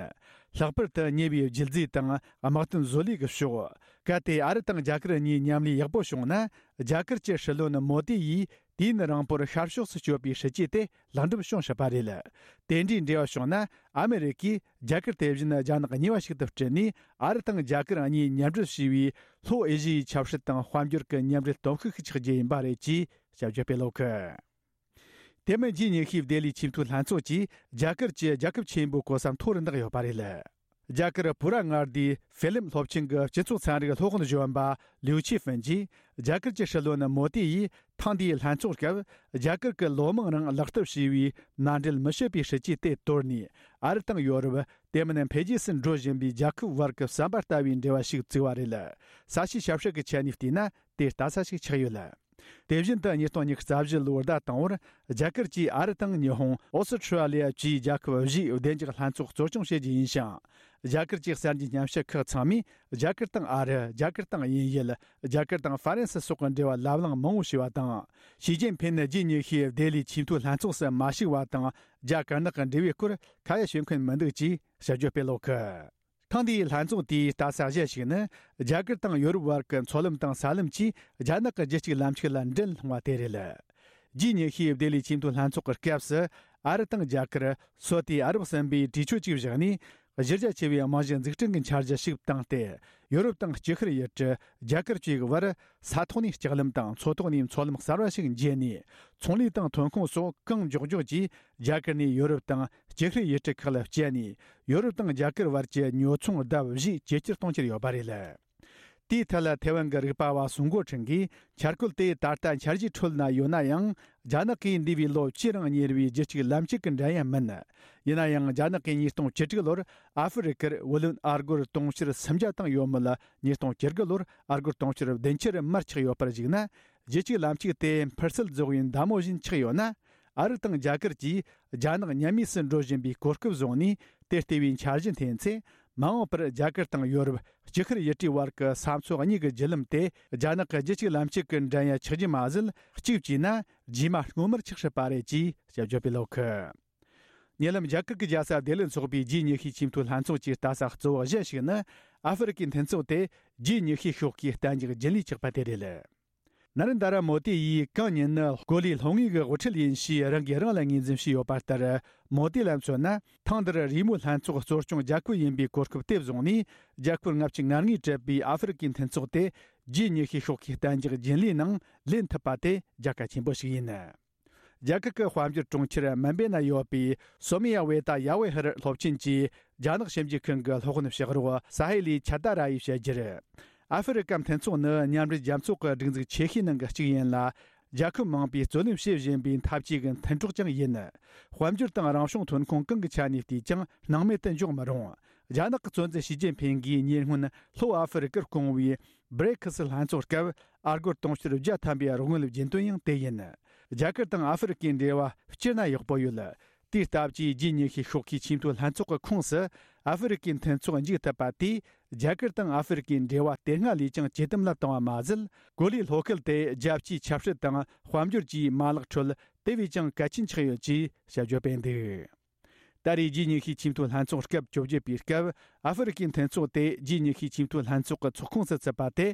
ལྷག་པར་དུ་ཉེ་བའི་རྒྱུ་རྫས་དང་དམག་དོན་བཟོ་ལས་ཀྱི་ཕྱོགས། གལ་ཏེ་ཨ་རི་དང་རྒྱ་གར་གཉིས་མཉམ་ལས་ཡག་པོ་བྱུང་ན། རྒྱ་གར་གྱི་སྲིད་བློན་མོ་དི་ཡིས་དུས་ཡུན་རིང་པོར་ཤར་ཕྱོགས་སུ་སྐྱོད་པའི་སྲིད་ཇུས་དེ་ལེགས་འགྲུབ་བྱུང་སྲིད་པ་རེད། དེ་འདྲའི་འབྲེལ་བ་བྱུང་ན། ཨ་མི་རི་ཀས་རྒྱ་གར་དེ་བཞིན་རྒྱ་ནག་གཉིས་པ་ཞིག་ཏུ་བསྐྲུན་ནས། ཨ་རི་དང་རྒྱ་གར་གཉིས་མཉམ་འབྲེལ་བྱས་པའི་ལྷོ་ཨེ་ཤི་ཡའི་ཆབ་སྲིད་དང་དཔལ་འབྱོར་གྱི་མཉམ་འབྲེལ་སྟོབས་ཤུགས་ཤིག་ཆགས་རྒྱུ་ཡིན་པ་རེད་ཅེས་དཔྱད་བརྗོད་སྤེལ་ཡོད། དེ་མིན་ཇུས་ཉི་ཤུའི་ལྡི་ལིའི་ཆེས་མཐོའི་ལྷན་ཚོགས་ཀྱིས་རྒྱ་གར་གྱི་རྒྱལ་ཁབ་ཆེན་པོའི་གོ་ས་མཐོ་རུ་འདེགས་ཡོད་པ་རེད། རྒྱ་གར་བོད་ར་མངའ་སྡེའི་ཧྥེ་ལིམ་སློབ་ཆེན་གྱི་སྤྱི་ཚོགས་ཚན་རིག་སློབ་དཔོན་གཞོན་པ་ལིའུ་ཆི་ཧྥིན་གྱིས། རྒྱ་གར་གྱི་སྲིད་བློན་མོ་དི་ཡིས་ཐེངས་འདིའི་ལྷན་ཚོགས་སྐབས། རྒྱ་གར་གྱི་ལོ་མང་རིང་ལག་བསྟར་བྱས་པའི་མནའ་འབྲེལ་མི་བྱེད་པའི་སྲིད་ཇུས་དེ་དོར་ནས། ཨ་རི་དང་ཡོ་རོབ། དེ་མིན་འཕེལ་རྒྱས་སུ་འགྲོ་བཞིན་པའི་རྒྱལ་ཁབ་བར་གྱི་ཟམ་པ་ལྟ་བུའི་འབྲེལ་བ་ཞིག་བཙུགས་པ་རེད། ས་བྱིའི་ཞབས་ཞུ་གི་ཆ་ནས་བལྟས་ན། དེ་ལྟ་ས་ཞིག་ཆགས་ཡོད། དེ་བཞིན་དུ་ཉིས་སྟོང་ཉི་ཤུ་རྩ་བཞི་ལོའི་ཟླ་དང་པོར། རྒྱ་གར་གྱིས་ཨ་རི་དང་ཉི་ཧོང་། ཨོ་སི་ཁྲུ་ལི་ཡ་བཅས་རྒྱལ་ཁབ་བཞིའི་བདེ་འཇགས་ལྷན་ཚོགས་གཙོ་སྐྱོང་བྱེད་རྒྱུ་ཡིན་ཞིང་། རྒྱ་གར་གྱི་གསར་འགྱུར་ཉམས་ཞིབ་ཁག་ཚང་མས། རྒྱ་གར་དང་ཨ་རི། རྒྱ་གར་དང་དབྱིན་ཡུལ། རྒྱ་གར་དང་ཧྥ་རན་སི་སོགས་ཀྱི་འབྲེལ་བ་ལབ་གླེང་མང་བོ་བྱས་པ་དང་། ཞི་ཅིན་ཕིན་ནི་ཇུས་ཉི་ཤུའི་ལྡི་ལིའི་ཆེས་མཐོའི་ལྷན་ཚོགས་སུ་མ་ཞུགས་པ་དང་། རྒྱ་དཀར་ནག་གི་འབྲེལ་བའི་སྐོར་ཁ་ཡ་བྱེད་མཁན་མི་འདུག་ཅེས་དཔྱད་བརྗོད་སྤེལ་ཡོད། ཐེངས་འདིའི་ལྷན་ཚོགས་དེའི་ལྟ་ས་གཞན་ཞིག་ནི། རྒྱ་གར་དང་ཡོ་རོབ་བར་གྱི་མཚོ་ལམ་དང་ས་ལམ་གྱིས་རྒྱ་ནག་གི་རྒྱུད་གཅིག་ལམ་གཅིག་ལ་འགྲན་སློང་བ་དེ་རེད། ཇི་ཉི་ཤུའི་ལྡི་ལི་ཆེས་མཐོའི་ལྷན་ཚོགས་ཀྱི་སྐབས་སུ། ཨ་རི་དང་རྒྱ་གར། སོ་ཏི་ཨ་རབ་གསུམ་པོས་གྲོས་ཆོད་ཅིག་བཞག་ནས། གཞི་རྒྱ་ཆེ་བའི་རྨང་གཞི་འཛུགས་སྐྲུན་གྱི་འཆར་གཞི་ཞིག་བཏིང་སྟེ། ཡོ་རོབ་དང་ལྕི་ཤར་ཡུལ་གྲུ། རྒྱ་གར་བཅས་ཀྱི་བར། ས་ཐོག་ནས་ལྕགས་ལམ་དང་མཚོ་ཐོག་ནས་མཚོ་ལམ་གསར་བ་ཞིག་འབྱེད་ནས། ཚོང་ལས་དང་ཐོན་ཁུངས་སོགས་གང་མགྱོགས་མགྱོགས་ཀྱིས་རྒྱ་གར་ནས་ཡོ་རོབ་དང་ལྕི་ཤར་ཡུལ་གྲུ་ཁག་ལ་བསྐྱལ་ནས། ཡོ་རོབ་དང་རྒྱ་གར་བར་གྱི་ཉོ་ཚོང་ལྡབ་བཞི་ཇེ་ཆེར་གཏོང་རྒྱུར་ཡོད་པ་རེད། དེའི་ཐད་ལ་ཐེ་ཝན་གྱི་རིག་པ་བ་སུང་གོ་ཁྲིན་གྱིས། འཆར་འགོད་དེ་ད་ལྟ་འཆར་གཞིའི་ཁྲོད་ན་ཡོད་ན་ཡང་། རྒྱ་ནག་གིས་འདས་པའི་ལོ་བཅུ་རིང་གཉེར་བའི་རྒྱུད་གཅིག་ལམ་གཅིག་གི་འགྲན་ཡ་མིན། ཡིན་ན་ཡང་། རྒྱ་ནག་གིས་ཉིས་སྟོང་བཅུ་དྲུག་ལོར་ཨ་ཧྥེ་རི་ཁར་བུ་ལོན་ཨ་སྒོར་དུང་ཕྱུར་སུམ་བརྒྱ་བཏང་ཡོད་མོད། ཉིས་སྟོང་བཅུ་དགུ་ལོར་ཨ་སྒོར་དུང་ཕྱུར་བདུན་ཅུར་མར་ཆག་ཡོད་པར་གཞིགས་ན། རྒྱུད་གཅིག་ལམ་གཅིག་དེ་འཕུར་སེལ་རྫོགས་པའི་མདའ་མོ་བཞིན་ཆག་ཡོད་ན། ཨ་རི་དང་རྒྱ་གར་གྱིས་རྒྱ་ནག་ཉམས་དམས་སུ་འགྲོ་བཞིན་པའི་གོ་སྐབས་བཟུང་ནས། དེ་ལྟ་བུའི་འཆར་གཞི་འཐེན་ཚེ། མ་འོངས་པར་རྒྱ་གར་དང་ཡོ་རོབ། ལྕི་ཤར་ཡུལ་གྲུའི་བར་གྱི་ས་མཚོ་གཉིས་ཀྱི་བརྒྱུད་ལམ་དེ། རྒྱ་ནག་གི་རྒྱུད་གཅིག་ལམ་གཅིག་གི་འགྲན་ཡ་ཆགས་རྒྱུ་མ་ཟད། གཅིག་བྱས་ན། རྗེས་མ་སྔོན་མར་ཆགས་སྲིད་པ་རེད་ཅེས་དཔྱད་བརྗོད་པས་ཀློག་གི། ཉེ་ལམ་རྒྱ་གར་གྱི་རྒྱལ་ས་ལྡི་ལིར་འཚོགས་པའི་ཇི་ཉི་ཤུའི་ཆེས་མཐོའི་ལྷན་ཚོགས་ཀྱི་ལྟ་ས་གཙོ་བོ་གཞན་ཞིག་ནི། ཨ་ཧྥེ་རི་ཁའི་མཐུན་ཚོགས་དེ་ཇི་ཉི་ཤུའི་ཤོག་ཁའི་གཏན་འཇགས་རྒྱུན་ལས་ཆགས་པ་དེ་རེད། ན་རེན་དྲ་མོ་དི་ཡིས་གང་ཉིད་ནི་གོ་ལའི་ལྷོ་ངོས་ཀྱི་དབུ་ཁྲིད་ཡིན་ཞེས་རང་གིས་རང་ལ་ངོས་འཛིན་བྱས་ཡོད་པ་ལྟར། མོ་དི་ལ་མཚོན་ན། ཐེངས་འདིར་རེས་མོས་ལྷན་ཚོགས་གཙོ་སྐྱོང་རྒྱལ་ཁབ་ཡིན་པའི་གོ་སྐབས་དེ་བཟུང་ནས། རྒྱལ་ཁབ་ལྔ་བཅུ་ང་ལྔས་གྲུབ་པའི་ཨ་ཧྥེ་རི་ཁའི་མཐུན་ཚོགས་དེ་ཇི་ཉི་ཤུའི་ཤོག་ཁའི་གཏན་འཇགས་རྒྱུན་ལས་ནང་ལེན་ཐུབ་པ་དེ་རྒྱལ་ཁ་ཆེན་པོ་ཞིག་ཡིན། རྒྱ་གར་གྱི་དཔལ་འབྱོར་གྲོང་ཁྱེར་མུམ་བེ་ན་ཡོད་པའི་སོ་མི་ཡ་ཝེ་ཏ་ཡ་ཝེ་ཧར་སློབ་ཆེན་གྱི་རྒྱ་ནག་ཞིབ་འཇུག་ཁང་གི་སློབ་དཔོན་ཕྱག་རོགས་ས་ཧེ་ལི་ཆ་ད་ར་ཡིས་བཤད་རྒྱུར། ཨ་ཧྥེ་རི་ཀ་མཐུན་ཚོགས་ནི་མཉམ་འབྲེལ་རྒྱལ་ཚོགས་ཀྱི་སྒྲིག་འཛུགས་ཆེ་ཤོས་ནང་གི་གཅིག་ཡིན་ལ། རྒྱལ་ཁབ་མང་པོས་རྩོད་ལེན་བྱེད་བཞིན་པའི་འཐབ་ཇུས་ཀྱི་མཐུན་གྲོགས་ཀྱང་ཡིན། དཔལ་འབྱོར་དང་རང་བྱུང་ཐོན་ཁུངས་གང་གི་ཆ་ནས་བལྟས་ཀྱང་སྣང་མེད་དུ་འཇོག་མི་རུང་། རྒྱ་ནག་གི་གཙོ་འཛིན་ཞི་ཅིན་ཕིང་གིས་ཉེ་སྔོན་ལྷོ་ཨ་ཧྥེ་རི་ཀར་བསྐོང་བའི་བྷི་རི་ཁི་སི་ལྷན་ཚོགས་སྐབས་ཨ་སྒོར་དུང་ཕྱུར་བརྒྱ་ཐམ་པའི་རོགས་དངུལ་བྱིན་དོན་ཡང་དེ་ཡིན། རྒྱ་གར་དང་ཨ་ཧྥེ་རི་ཀའི་འབྲེལ་བ་སྤྱིར་ན་ཡག་པོ་ཡོད། དེའི་སྟབས་ཀྱིས་ཇི་ཉི་ཤུའི་ཤོག་ཁའི་ཆེས་མཐོའི་ལྷན་ཚོགས་ཀྱི་ཁོངས་སུ་ཨ་ཧྥེ་རི་ཀའི་མཐུན་ཚོགས་འཇུག་ཐུབ་པ་དེས། རྒྱ་གར་དང་ཨ་ཧྥེ་རི་ཀའི་འབྲེལ་བ་དེ་སྔ་ལས་ཀྱང་ཇེ་དམ་ལ་བཏང་བ་མ་ཟད། གོ་ལའི་ལྷོ་ཁུལ་དེ་རྒྱལ་སྤྱིའི་ཆབ་སྲིད་དང་དཔལ་འབྱོར་གྱི་མ་ལག་ཁྲོད་དེ་བས་ཀྱང་གལ་ཆེན་ཆགས་ཡོད་ཅེས་དཔྱད་བརྗོད་སྤེལ་འདུག་ད་རེས་ཇི་ཉི་ཤུའི་ཆེས་མཐོའི་ལྷན་ཚོགས་སྐབས་བཅོ་བརྒྱད་པའི་སྐབས། ཨ་ཧྥེ་རི་ཀའི་མཐུན་ཚོགས་དེ་ཇི་ཉི་ཤུའི་ཆེས་མཐོའི་ལྷན་ཚོགས་ཀྱི་ཚོགས་ཁོངས་སུ་ཚུད་པ་དེ།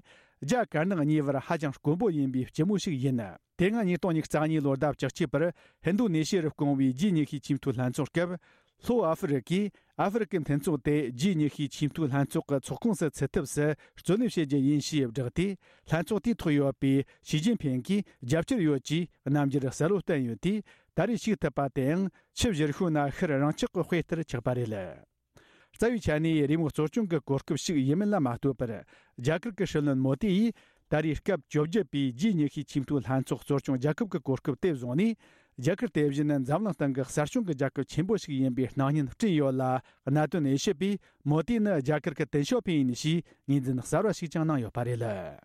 རྒྱ་དཀར་ནག་གཉིས་བར་ཧ་ཅང་དཀོན་པོ་ཡིན་པའི་སྐྱིད་མོ་ཞིག་ཡིན། དེ་སྔ་ཉིས་སྟོང་ཉི་ཤུ་རྩ་གཉིས་ལོའི་ཟླ་བཅུ་གཅིག་པར་ཧིན་རྡུ་ནེ་ཤི་ཡར་བསྐོང་བའི་ཇི་ཉི་ཤུའི་ཆེས་མཐོའི་ལྷན་ཚོགས་སྐབས། ལྷོ་ཨ་ཧྥེ་རི་ཀས་ཨ་ཧྥེ་རི་ཀའི་མཐུན་ཚོགས་དེ་ཇི་ཉི་ཤུའི་ཆེས་མཐོའི་ལྷན་ཚོགས་ཀྱི་ཚོགས་ཁོངས་སུ་ཚུད་ཐབས་སུ་རྩོད་ལེན་བྱེད་རྒྱུ་ཡིན་ཞེས་བསྒྲགས་ཏེ། ལྷན་ཚོགས་དེའི་ཐོག་ཡོད་པའི་ཞི་ཅིན་ཕིང་གིས་རྒྱབ་སྐྱོར་ཡོད་ཅེས་རྣམ་འགྱུར་གསལ་བོ་བསྟན་ཡོད་དུས། ད་རེས་ཞུགས་ཐུབ་པ་དེའང་ཆུ་བཞུར་ཤུལ་ན་ཤར་རང་ཆག་གི་དཔེ་ལྟར་ཆགས་པ་རེད། རྩ་བའི་ཆ་ནས་རེས་མོས་གཙོ་སྐྱོང་གི་གོ་སྐབས་ཤིག་ཡིན་མིན་ལ་མ་ལྟོས་པར། རྒྱ་གར་གྱི་སྲིད་བློན་མོ་དི་ཡིས་ད་རེས་སྐབས་བཅོ་བརྒྱད་པའི་ཇི་ཉི་ཤུའི་ཆེས་མཐོའི་ལྷན་ཚོགས་གཙོ་སྐྱོང་རྒྱལ་ཁབ་ཀྱི་གོ་སྐབས་དེ་བཟུང་ནས། རྒྱ་གར་དེ་བཞིན་འཛམ་གླིང་སྟེང་གི་གསར་བྱུང་གི་རྒྱལ་ཁབ་ཆེན་པོ་ཞིག་ཡིན་པའི་སྣང་བརྙན་བསྐྲུན་ཡོད་ལ། གནད་དོན་དབྱེ་ཞིབ་པས་མོ་དི་ནི་རྒྱ་གར་གྱི་ཏེང་ཞའོ་ཕིང་ཡིན་ཞེས་ངོས་འཛིན་གསར་བ་ཞིག་ཀྱང་གནང་ཡོད་པ་རེད།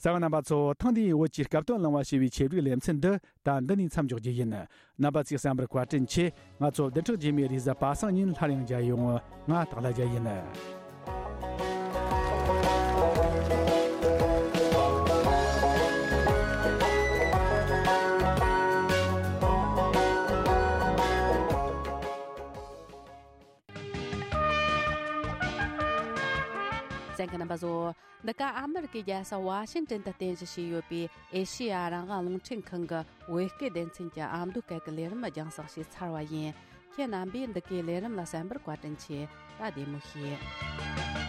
གསན་པ་རྣམ་པ་ཚོ། ཐེངས་འདིའི་བོད་ཀྱི་སྐབས་དོན་གླེང་བ་ཞེས་པའི་ཆེད་བསྒྲིགས་ལེ་ཚན་འདི་ད་འདི་ནས་མཚམས་འཇོག་རྒྱུ་ཡིན། རྣམ་པ་ཚོས་གསན་པར་བཀའ་དྲིན་ཆེ། ང་ཚོ་བདུན་ཕྲག་རྗེས་མའི་རེས་གཟའ་པ་སངས་ཉིན་སླར་ཡང་མཇལ་ཡོང་། ང་སྟག་ལྷ་རྒྱལ་ཡིན། གསན་མཁན་རྣམ་པ་ཚོ། འདི་ག་ཨ་མི་རི་ཀའི་རྒྱལ་ས་ཝ་ཤིང་ཏན་དུ་རྟེན་གཞི་བྱས་ཡོད་པའི་ཨེ་ཤེ་ཡ་རང་དབང་རླུང་འཕྲིན་ཁང་གི་བོད་སྐད་སྡེ་ཚན་གྱི་ཨ་མདོ་སྐད་ཀྱི་ལས་རིམ་རྒྱང་སྲིང་བྱས་ཚར་བ་ཡིན། ཁྱེད་རྣམ་པས་འདི་གའི་ལས་རིམ་ལ་གསན་པར་བཀའ་དྲིན་ཆེ། ད་བདེ་མོ་བྱོས།